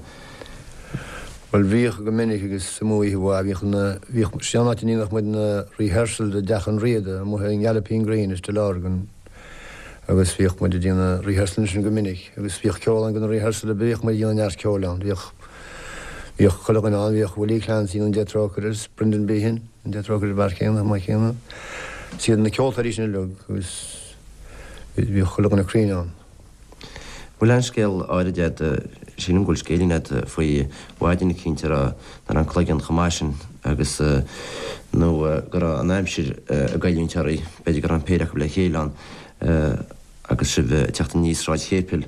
Bhuel bhíodh go minic agus is iomaí oíche mhaith. Bhíodh na, bhíodh, sé an áit a ndéanadh muid na rehearsals i dteach an Riada amuigh i nGalloping Green istigh i Lurgan. agus bhíodh muid ag déanamh rehearsal ansin go minic agus bhíodh ceol ann go na rehearsal bhíodh muid ag déanamh neart ceoil ann bhíodh bhíodh chuile dhuine ann bhíodh Willie Clancy an Dé Trócaire is Brendan Behan an Dé Trócaire an fear céanna maith céanna is iad na ceoltóirí sin uilig agus bhíodh chuile dhuine cruinn ann. Bhfuil aon scéal áirid agat, sílim go bhfuil scéilín agat faoi mhaidin eicínt a raibh, nach raibh an cloigeann chomh maith sin agus, nó go raibh an aimsir ag goilliúint oraibh, b'fhéidir go raibh an péire acu le chéile ann agus sibh ag teacht aníos Sráid Chéipil.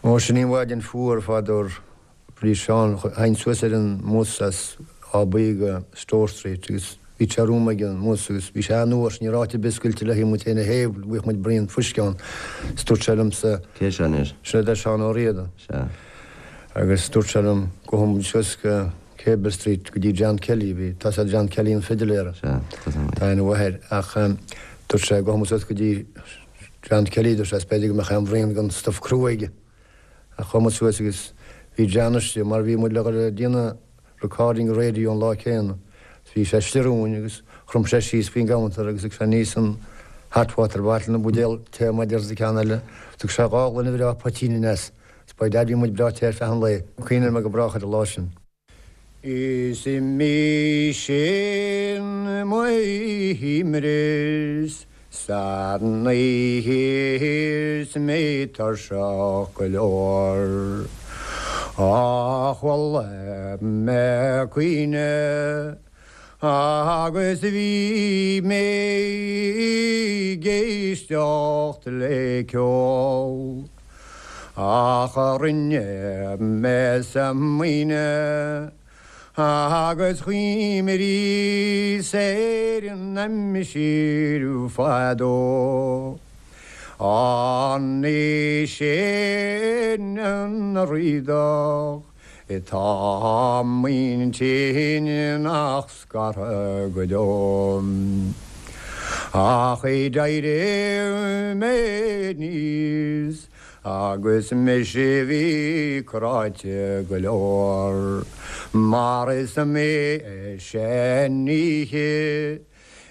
Ó, sin í an mhaidin fuar fadó. Bhí Seán, théinn suas ar an mbus as Áth Buí go Store Street agus bhí sé romham ag an mbus agus bhí sé an-fhuar, ní raibh áit ar bith scoilte le muid féin a théamh, bhíodh muid braon fuisce ann. Is dúirt sé liomsa. Cé seo anois? Sin é Seán Ó Riada. Sea. Agus dúirt sé liom, gabhfaidh muid suas go Cable Street go dtí John Kelly, bhí, tá's a'd John Kelly an fidiléara. Sea, tá's a'm. Tá aithne mhaith air. Ach dúirt sé, gabhfaidh muid suas go dtí John Kelly, dúirt sé, is b'fhéidir go mbeadh aon bhraon den stuif crua aige. Ach chuaigh muid suas agus bhí John istigh mar bhí muid le dhul ag déanamh recording radio an lá céanna. Bhí sé istigh romhainn agus chrom sé síos faoin gcounter agus thug sé aníos an hot water bottle an buidéal tae mar deir sa ceann eile. Thug sé dhá ghloine bhreá poitín aneas. Is by dad bhí muid breá te ar feadh an lae. Cuimhneoidh mé go brách ar an lá sin. Is mise mo dhíomras san oíche is mé tuirseach go leor. Ach chuala mé caoineadh agus bhí mé ag éisteacht le ceol. Ach rinne mé smaoineamh agus chuimhníos ar an aimsir fadó. An é sin an Riadach atá m'intinn nach scartha go deo? Ach d'éirigh mé aníos Agus mise bhí cráite go leor, mar is iomaí sean-oíche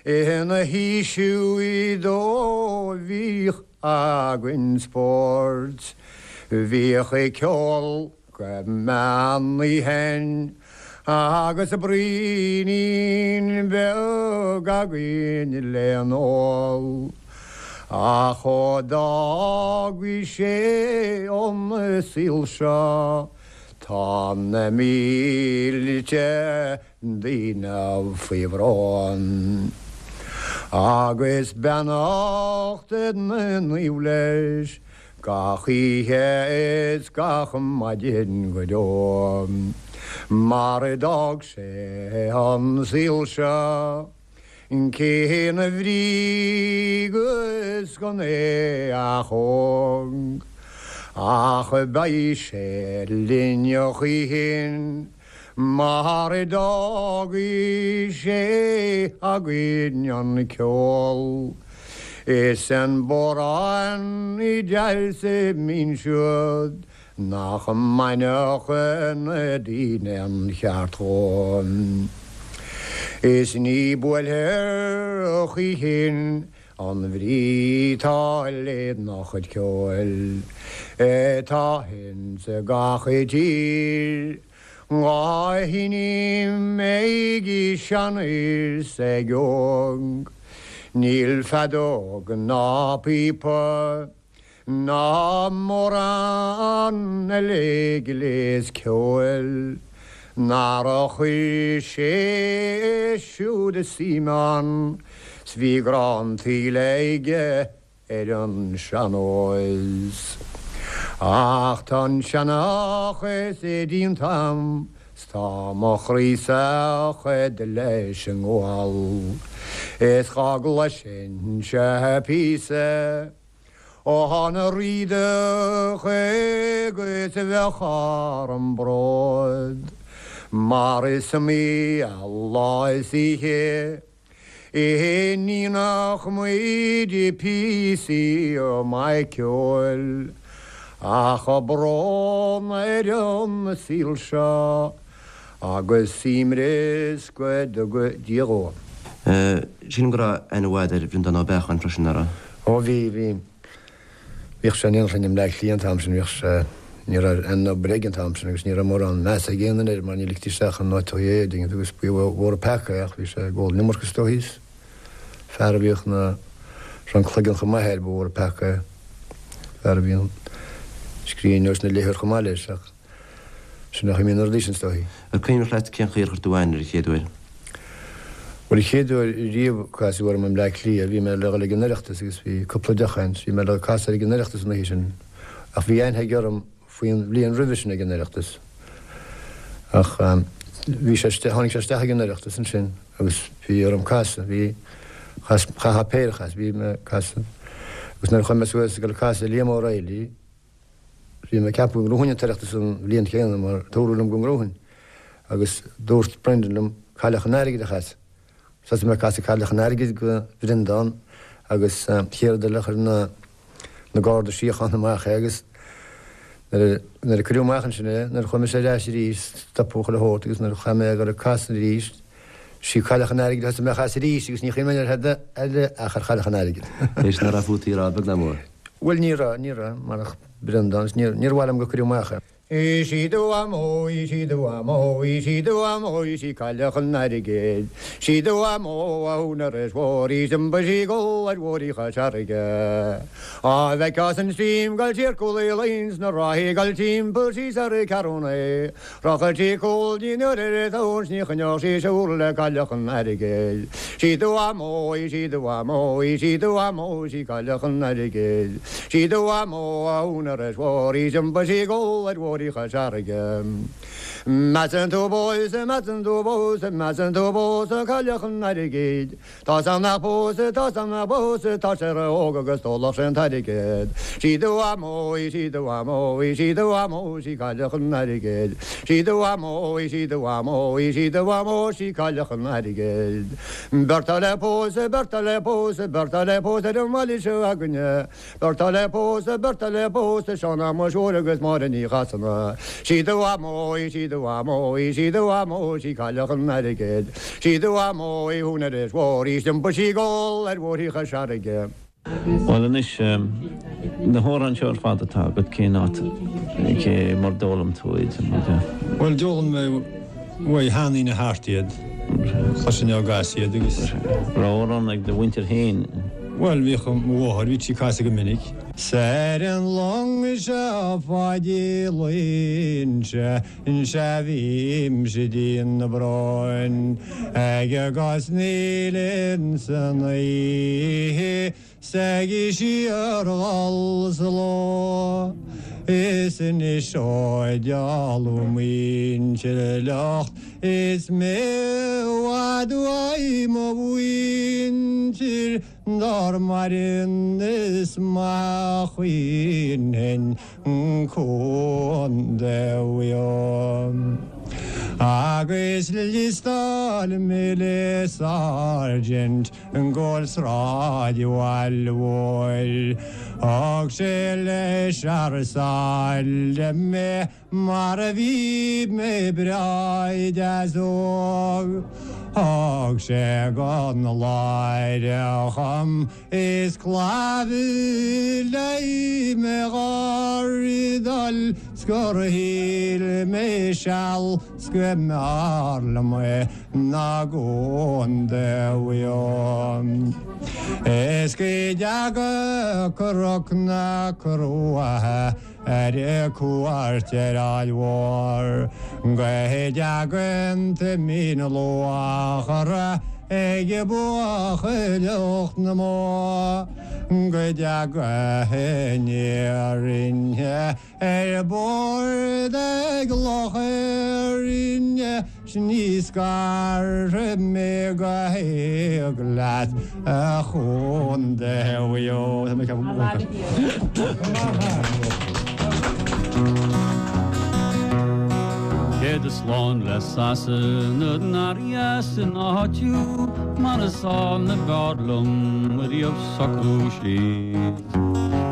ina haois do bhíodh againn spóirt, bhíodh ceol go meán oíche agus braoinín beag againn le n-ól. Ach ó d'fhágaidh sé an saol seo tá na mílte daoine faoi bhrón. Agus beannacht na naomh leis Gach oíche is gach maidin go deo mar a d'fhág sé an saol seo cén bhrí agus gan é ach óg ach beidh sé linn a choíchin. Mar a d'fhágaidh sé againn an ceol is an bodhrán deas mín siúd nach mbainfeadh na daoine an cheart dhó. Is ní buailfear choíchin an bhrí 'tá lena chuid ceoil atá ins gach tír. Dhá sheinm ag sean is ag óg, níl feadóg ná píopa ná mórán eile gléas ceoil nár chuir sé siúd suim ann 's bhí grá an tsaoil aige. ar an sean-nós. Ach tá an seanchas déanta a'm 's tá mo chroí sách leis an ngual is dhá gcloisinnse píosa ón Riadach agus bheadh orm bród mar is iomaí lá is oíche a sheinneadh muid píosaí maith ceoil, ach brón ar an saol seo agus suaimhneas go dtuga Dia dhó. Sílim go raibh aithne mhaith agat ar Bhreandán Ó Beacháin freisin, nach raibh? Ó bhí, bhí. Bhíodh sé in éineacht linn i mBleá Cliath an t-am sin, bhíodh sé, ní raibh aon obair aige an t-am sin agus ní raibh mórán measa ag aon duine air mar ní ligtí isteach in áiteachaí é, dtuigeann tú, agus ba mhór an peaca é ach bhí sé ag ól an iomarca is dóichí is fear a bhíodh na, raibh an cloigeann chomh maith air, ba mhór an peaca é, fear a bhí an scríbhneoir is an léitheoir chomh maith leis ach. Sin é an chaoi a mbíonn na rudaí sin, is dóichí. Ar cuimhneach leat cén chaoi ar chuir tú aithne air an chéad uair? Bhuel, an chéad uair riamh a casadh orm i mBleá Cliath, bhí mé le dhul ag an Oireachtas agus bhí cúpla deoch againn, bhí mé le casadh air ag an Oireachtas an oíche sin ach bhí aithne aige orm faoin bhliain roimhe sin ag an Oireachtas. Ach bhí sé, tháinig sé isteach ag an Oireachtas ansin agus bhí orm casadh, bhí, chas, chaithfeá péire a chasadh, bhí mé ag casadh agus nuair a chuaigh mé suas ag dul ag casadh Liam O'Reilly, Bhí mé ag ceapadh go ngnóthóinn an tOireachtas an bhliain chéanna mar dúradh liom go ngnóthóinn agus dúirt Brendan liom Cailleach an Airgid a chasadh. Thosaigh mé ag casadh Cailleach an Airgid go Bhreandán agus chéad rud eile chuir na na Garda Síochána amach é agus nuair a nuair a cuireadh amach ansin é nuair a chuaigh mise ar ais arís stopadh chuile shórt agus nuair a chaith mé a dhul ag casadh arís sí Cailleach an Airgid a thosaigh mé a chasadh arís agus ní chuimhin mé ar tada eile ach ar Chailleach an Airgid. Théis nach raibh fút í a rá beag ná mór. Bhuel, ní raibh, ní raibh, marach Breandán, is níor, níor mhaith liom gur cuireadh amach é. Is í do mhamó, is í do mhamó, is í do mhamó, is í Cailleach an Airgid. 'S í do mhamó a húinéir is mhór, is d'iompaigh sí ag dul ar bhóithrí Chois Fharraige. Á bhfeicfeá san stream 'goil siar Cúil Uí Fhloinn 's na ráthaí 'goil timpeall síos ar an Ceathrúna. Rachadh sí cúl ní nuair ar a tóin 's ní choinneodh sí siúl le Cailleach an Airgid. 'Sí do mhamó í, 'sí do mhamó í, 'sí do mhamó, 'sí Cailleach an Airgid. 'Sí do mhamó a húinéir is mhór í 's iompaigh sí ag gol ar bhóithrí Chois Fharraige. Measann tú pósadh, measann tú pósadh, measann tú pósadh Cailleach an Airgid. Tá's a'm nach pósfaidh, tá's a'm nach pósfaidh, tá sé ró-óg agus d'ólfadh sé an t-airgead. 'Sí do mhamó í, 'sí do mhamó í, 'sí do mhamó, 'sí Cailleach an Airgid. 'Sí do mhamó í, 'sí do mhamó í, 'sí do mhamó, 'sí Cailleach an Airgid. Beirt atá le pósadh, beirt atá le pósadh, beirt atá le pósadh ar an mbaile seo againne. Beirt atá le pósadh, beirt atá le pósadh, Seán Shéamuis Mhóir agus Máire Ní Chasana. 'Sí do mhamó í, 'sí do mhamó í, 'sí do mhamó, 'sí Cailleach an Airgid. 'Sí do mhamó í, húinéir is mhór í, 's d'iompaigh sí ag gol ar bhóithrí Chois Fharraige. Bhuel anois, na hamhráin seo ar fad atá agat, cén áit, cé mar d'fhoghlaim tú iad? Bhuel, d'fhoghlaim mé uaidh sheandaoine thart iad, chloisinn á gcasadh iad agus. Raibh amhrán ag do mhuintir féin? Bhuel, bhíodh mo mháthair, bhíodh sí ag casadh go minic. 'S ar an long seo Pháidí Loingsigh, sea bhímse dian na bróin, ag cosnaíl ins an oíche 's ag síorghol sa ló. Is anois ó d'éalú muintir locht Is mé i bhfad uaidh mo mhuintir Dár maireann is maith a chaoinfinn Contae Mhaigh Eo. Agus liostáil mé le Sergeant go Sráid Bhaile Mhóir. Thug sé leis thar sáile mé mar a bhí mé breá deas óg. Thug sé gon Láir chum is clabhadh le mo ghardal 's gur shíl mé seal 's go mb'fhearr liom é ná Contae Mhaigh Eo. Is go dteaga Cnoc na Cruaiche ar cuairt ar Aill Mhór, go dteagann Toimín Luachra ag buachailleacht na mbó, go dteaga aniar ar bord ag Loch Éirne 's ní scarfaidh mé go héag leat a Chontae Mhaigh Eo. Céad is lán le Sasana nár dheas an áit thú mar is ann a b'fhearr liom riamh socrú síos.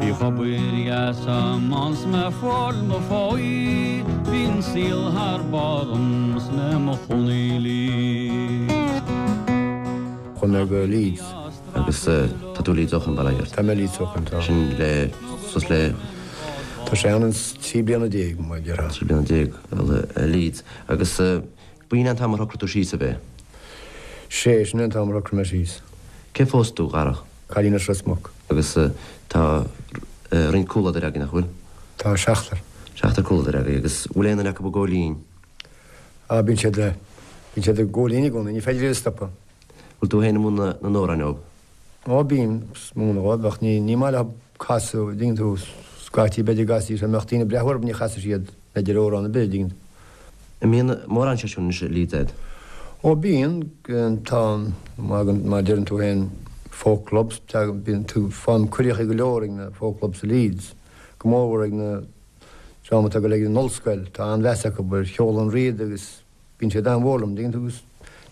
Bhíodh obair dheas a'm ann 's mé ag fáil mo pháí, bhí an saol thar barr dhom 's mé mo chónaí i Leeds. Chuaigh mé go Leeds. Agus tá tú i Leeds ó shoin, bail ó Dhia ort. Tá mé i Leeds ó shoin, tá. Sin le, suas le. Tá sé ann 13 bliana, mar a déarfá. 13 bliana i Leeds. Agus b'in é an t-am ar shocraigh tú síos, ab é? Sé, sin é an t-am ar shocraigh mé síos. Cé phós tú, a Dharach? Cailín as Ros Muc. Agus tá roinnt comhluadair agaibh, nach bhfuil? Tá seachtar. Seachtar comhluadair agaibh. Agus bhfuil aon duine acu ag gabháil fhoinn? Á, bíonn siad, bíonn siad ag gabháil fhoinn i gcónaí, ní féidir iad a stopadh. Bhfuil tú féin ag múineadh na n-amhrán dóibh? Á, bím ag múineadh dhóibh, ach ní, ní maith leo casadh, an dtuigeann tú, scaití b'fhéidir go gcasfaidís, dá mbeadh daoine ag breathnú orthu ní chasfaidh siad, b'fhéidir amhrán ar bith, an dtuigeann tú. An mbíonn mórán seisiún anois i Leeds a'd? Ó bíonn, tá, mar a deireann tú féin, folk clubs, bíonn tú, faighim cuireadh go leor ag na folk clubs i Leeds, go mórmhór ag na dream atá ag dul ag an ollscoil, tá an-mheas acu ar cheol an Riada agus bíonn siad an-mhór liom, dtuigeann tú, agus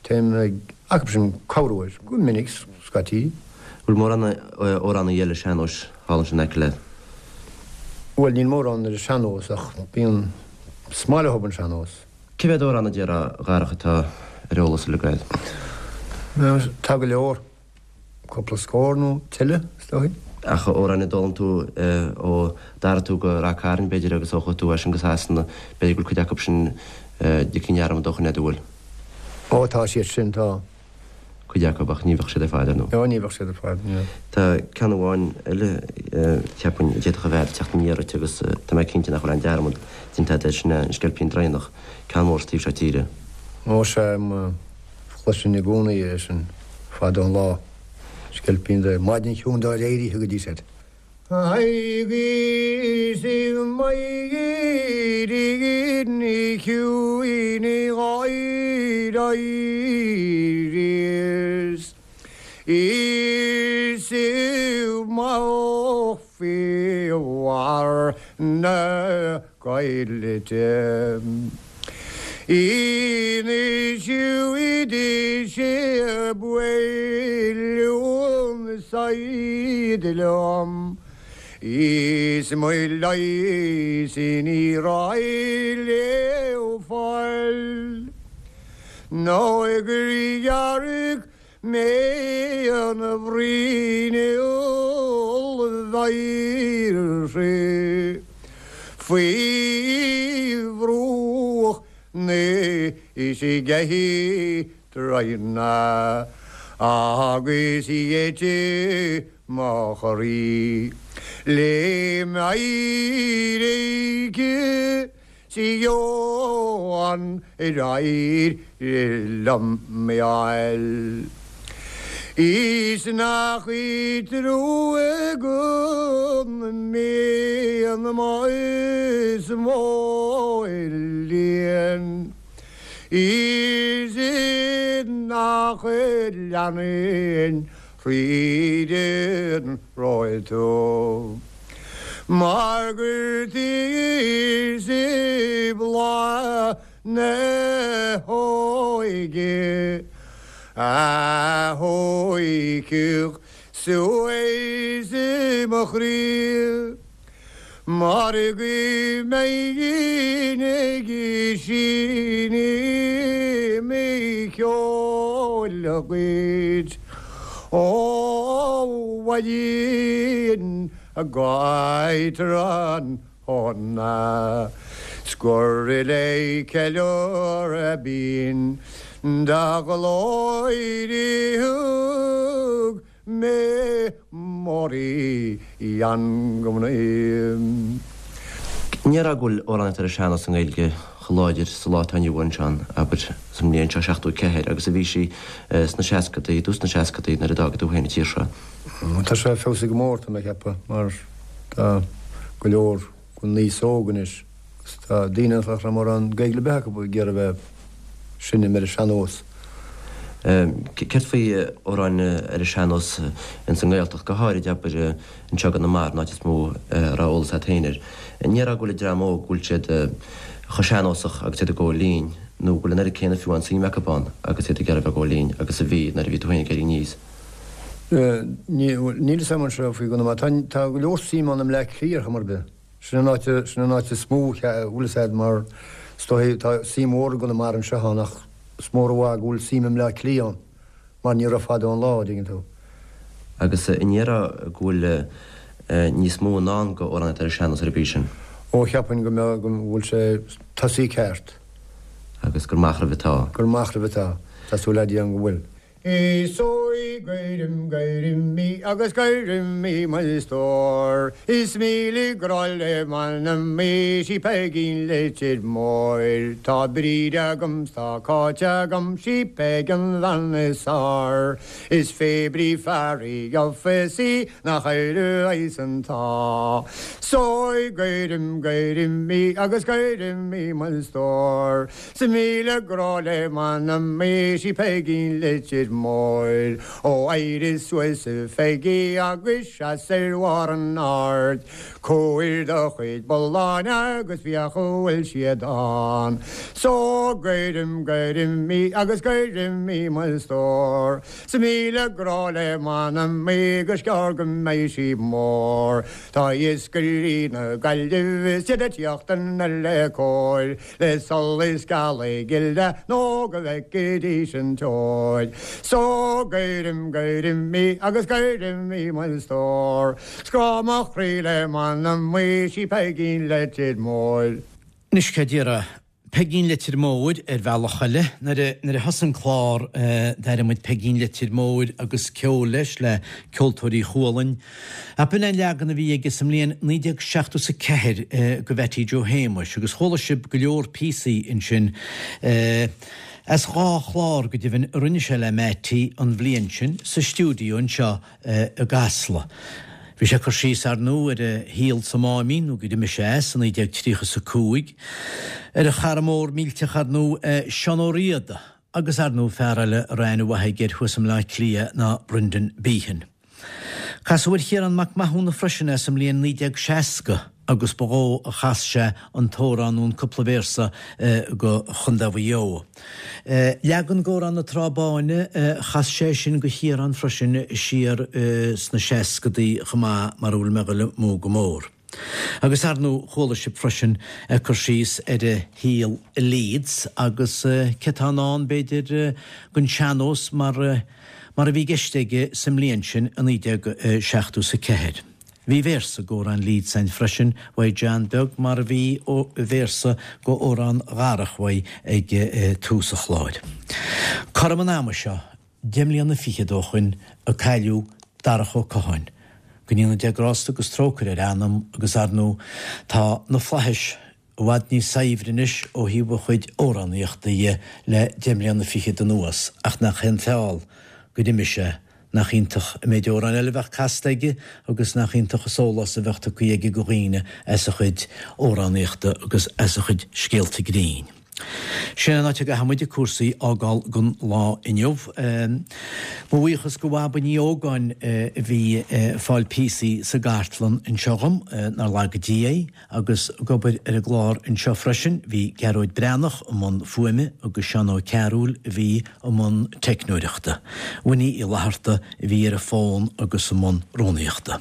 téim ag acu sin corruair, go minic, scaití. Bhfuil mórán amhránaí eile sean-nóis thall ansin in aice leat? Bhuel, níl mórán ar an sean-nós ach bíonn, is maith leo an sean-nós. Cé mhéad amhrán a déarfá, a Dharach, atá ar eolas uilig agat? Tá go leor. Cúpla scór nó tuilleadh, is dóigh. Ach amhráin a d'fhoghlaim tú ó d'athraigh tú go Rath Cairn, b'fhéidir, agus ó chuaigh tú as sin go Sasana, b'fhéidir go bhfuil cuid acu sin ligthe i ndearmad ó shoin, an bhfuil? Ó, tá siad sin, tá. Cuid acu, ach ní bheadh siad ar fad, ar ndóigh. Ó, ní bheadh siad ar fad, ní. Tá ceann amháin eile, cheapfainn, a d'fhéadfadh a bheith ag teacht aniar ort agus tá mé cinnte nach bhfuil aon dearmad déanta agat air, sin é An Sceilpín Draighneach, ceann mór sa taobh seo tíre. Ó, sea, chloisinn i gcónaí é sin fada an lá, Sceilpín Draighneach, maidin chiúin dár éirigh go dtí said. Agus i maidin chiúin dhár éiríos is i mo faoi bharr na Coillte. Inis sé buaileadh said liom is mo leigheas ní raibh le fáil nó gur ghearr mé an bhruinneall bheirthe faoi bhruach na Sceithe Draighne agus gheit mo chroí le m'éirice 'S gheobhainn ar éirigh liom mé fháil. Is nach í trua go mbíonn mo is mó líon. Is nach leanann thríd an raibh tú. Mar gur tí bláth. na hóige a thóigfeadh suas i mo chroí mar go mbeinn ag seinm ceoil dhuit ó mhaidin go tráthnóna 's gur le ceiliúradh binn do ghlóir a thug mé m'amhrán go mnaoi. An ndéarfá go bhfuil amhránaíocht ar an sean-nós i nGaeilge chomh láidir sa lá atá inniu ann, Seán, abair, sa mbliain seo 74, agus a bhí sí sna seascadaí, i dtús na seascadaí nuair a d'fhága tú féin an tír seo? Tá sé feabhsaithe go mór, tá mé ag ceapadh, mar tá go leor den aos óg anois agus tá daoine nach raibh mórán Gaeilge ar bith acu ag iarraidh a bheith ag seinm ar an sean-nós. Céard faoi amhráin ar an sean-nós ins an nGaeltacht, go háirid, abair, anseo i gConamara, an áit is mó a raibh eolas agat féin air. An ndéarfá go bhfuil an dream óg, go bhfuil siad chomh sean-nósach agus iad ag gabháil fhoinn, nó go bhfuil an oiread céanna fiú amháin suim acu ann agus iad ag iarraidh a bheith ag gabháil fhoinn agus a bhí nuair a bhí tú féin ag éirí aníos? Níl fhios agam anseo faoi Chonamara. Tá go leor suim ann i mBleá Cliath ar chuma ar bith. Sin an áit, sin an áit is mó a bhfuil fhios a'd mar is dóigh tá suim mhór i gConamara anseo ann ach is mór i bhfad go bhfuil suim i mBleá Cliath ann mar ní raibh fada ón lá, an dtuigeann tú. Agus an ndéarfá go bhfuil níos mó i ndán go amhránaíocht ar an sean-nós ar an gcaoi sin? Ó cheapfainn go mbeadh, go bhfuil sé tosaithe ceart. Agus gur amach roimh atá. Gur amach roimh atá. Tá súil a'd go bhfuil. Is í gcuirim, gcuirim í agus gcuirim í mo stór Is míle grá le m'anam í sí Peigín Leitir Móir Tá Bríd agam 's tá Cáit agam sí Peig an bhean is fearr Is fé brí fear í gheofas í nach éireoidh an t-ádh So gcuirim, gcuirim í agus gcuirim í mo stór 'S míle grá le m'anam í sí Peigín Leitir Móir Ó éirigh suas a Pheigí agus seas ar bharr an aird Comhair do chuid bulláin agus féach an bhfuil siad ann So gcuirim, gcuirim í agus gcuirim í mo stór 'S míle grá le m'anam í gus gearr go mbeidh sí mór Tá iascairí na Gaillimhe is iad ag tíocht anoir le cóir Le solas gealaí gile nó go bhfeicfidís an teoir. So gcuirim, gcuirim í agus gcuirim í mo stór. 'S grá mo chroí le m'anam í sí Peigín Leitir Móir. Anois céard déarfá? Peigín Leitir Móir ar bhealach eile. Nuair a, nuair a thosaigh an clár d'airigh muid Peigín Leitir Móir agus ceol leis le Ceoltóirí Chualann. Ach b'in é an leagan a bhí aige sa mbliain 1974 go Mhattie Joe Shéamuis agus chuala sibh go leor píosaí ansin as dhá chlár go deimhin a rinne sé le Mattie an bhliain sin sa stiúideo anseo i gCasla. Bhí sé ag cur síos ar ndóigh ar a shaol sa Máimín nó gur imigh sé as i 1935, ar a chara mór millteach ar ndóigh Seán Ó Riada agus ar ndóigh fear eile a raibh aithne mhaith aige air thuas i mBleá Cliath ná Brendan Behan. Casadh ar Chiarán Mac Mathúna freisin é sa mbliain 1960 agus ba dhó a chas sé an t-amhrán nó an cúpla véarsa go Chontae Mhaigh Eo. Leagan d'Amhrán na Trá Báine, chas sé sin go Chiarán freisin siar sna seascadaí chomh maith mar a bhfuil mé ag dul amú go mór. Agus ar ndóigh chuala sibh freisin ag cur síos ar a shaol i Leeds agus cé tá i ndán b'fhéidir den sean-nós mar mar a bhí i gceist aige sa mbliain sin i 1974. Bhí véarsa d'amhrán Leeds ann freisin uaidh John Beag mar a bhí véarsa d'amhrán Dharach uaidh ag tús an chláir. Cothrom an ama seo 10 mbliana fichead ó shoin a cailleadh Darach Ó Catháin. Go ndéana Dia grásta agus trócaire ar a anam agus ar ndóigh tá na flaithis i bhfad níos saibhre anois ó thaobh a chuid amhránaíochta dhe le 10 mbliana fichead anuas ach nach é an feall gur imigh sé, nach iontach an méid amhrán eile a bheadh casta aige agus nach iontach an sólás a bheadh tugtha aige go dhaoine as a chuid amhránaíochta agus as a chuid scéalta grinn. Sin an áit a gcaithfidh muid cúrsaí a fhágáil don lá inniu. Mo bhuíochas go Bhaba Ní Ógáin a bhí ag fáil píosaí sa gcartlann anseo dhom, nár laga Dia í, agus ag obair ar an gclár anseo freisin bhí Gearóid Breathnach i mbun fuaime agus Seán Ó Cearúil a bhí i mbun teicneoireachta. Winnie Uí Fhlatharta a bhí ar an bhfón agus i mbun rúnaíochta.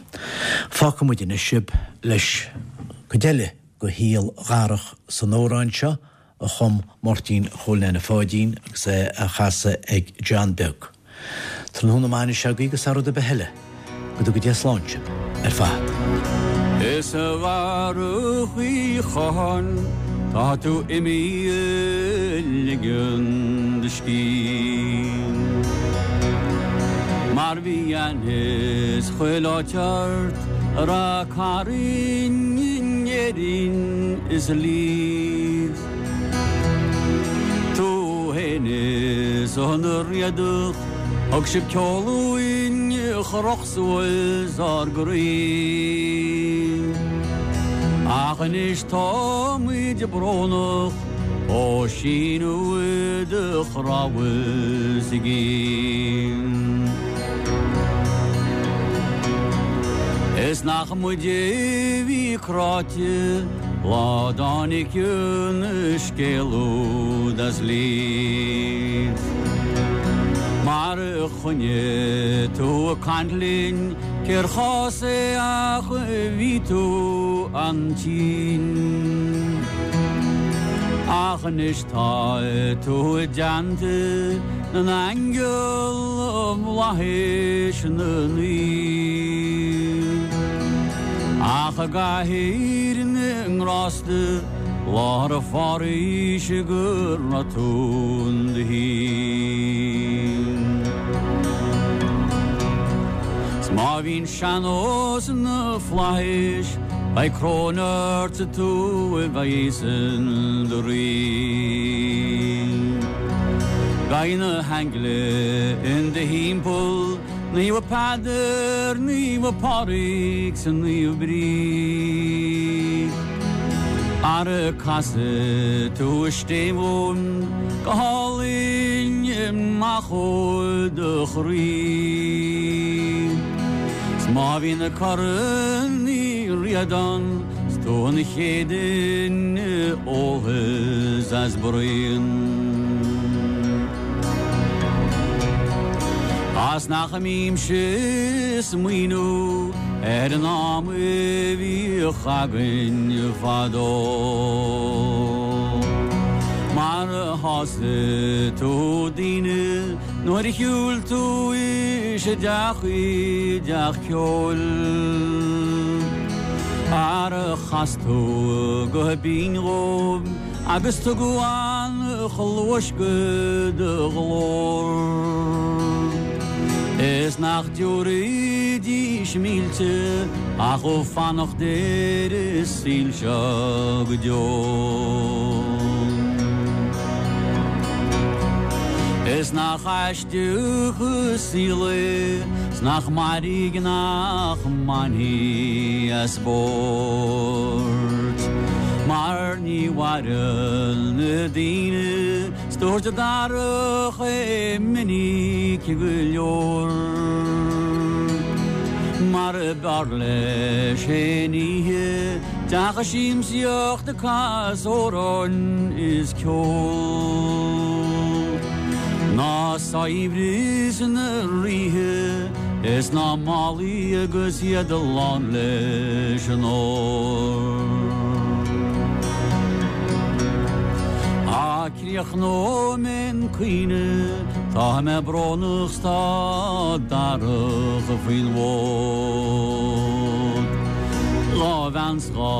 Fágfaidh muid anois sibh leis cuid eile de shaol Dharach san amhrán seo a chum Máirtín Chóil Neaine Pháidín agus é á chasadh ag John Beag. Tráthnóna maith anois agaibh agus thar rud ar bith eile, go dtuga Dia slán sibh ar fad. Is a Dharach Uí Chatháin tá tú imithe ag ligean do scíth. Mar bhí aithne 's chuile áit ort a raibh cara in Éirinn is i Leeds. Tú fhéin is an Riadach thug sibh ceol uainn a chroch suas ár gcroí. Ach anois táimid brónach ó síneadh do chnámha i gcéin. Is nach muide a bhí cráite lá dtáinig an scéal úd as Leeds. Mar a choinnigh tú ag caint linn cér chás é ach bhí tú an-tinn. Ach anois tá tú i dteannta na n-aingeal i bhflaithis na naomh. Ach i gcathaoir na ngrásta láthair a pháraois go raibh tú in do shuí. 'S má bhíonn sean-nós na flaithis beidh coróin ort 's tú a bheidh in do rí. Beidh na haingle in do thimpeall, Naomh Peadar, Naomh Pádraig 's Naomh Bríd. Ara casfaidh tú an stéibh dhúinn go hálainn amach ó do chroí. 'S má bhí na Corn Uí Ríordáin 's tú an chéad duine a ólfas as braon. A's nach mbímse ag smaoineamh ar an am a bhíodh againn fadó. Mar a shásaigh tú daoine nuair a shiúil tú isteach i dteach ceoil. Ara chas tú go binn dhóibh agus tugadh an-chluais go do ghlór. Is nach dtiúrfaidís mílte ach ó fanacht ar an saol seo go deo. Is nach aisteach an saol é 's nach mairg nach mbainfí as spórt mar ní mhaireann na daoine 's dúirt Darach é minic go leor mar b'fhearr leis féin oíche deacha siamsaíocht ag casadh amhráin is ceol ná saibhreas na ríthe is ná málaí agus iad lán leis an ór. Á críochnóidh mé an caoineadh, tá mé brónach 's tá Darach faoin bhfód. Dhá bhean 's dhá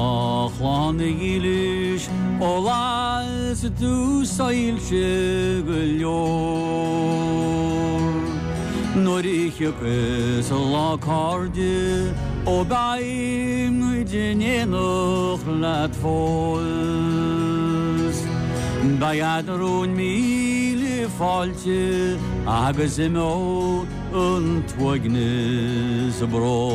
chlann dhílis ó las tú soilse go leor. Nuair a thiocfas lá cairde ó beidh muid in éineacht leat fós. Beidh eadrainn míle fáilte agus imeoidh an t-uaigneas brón.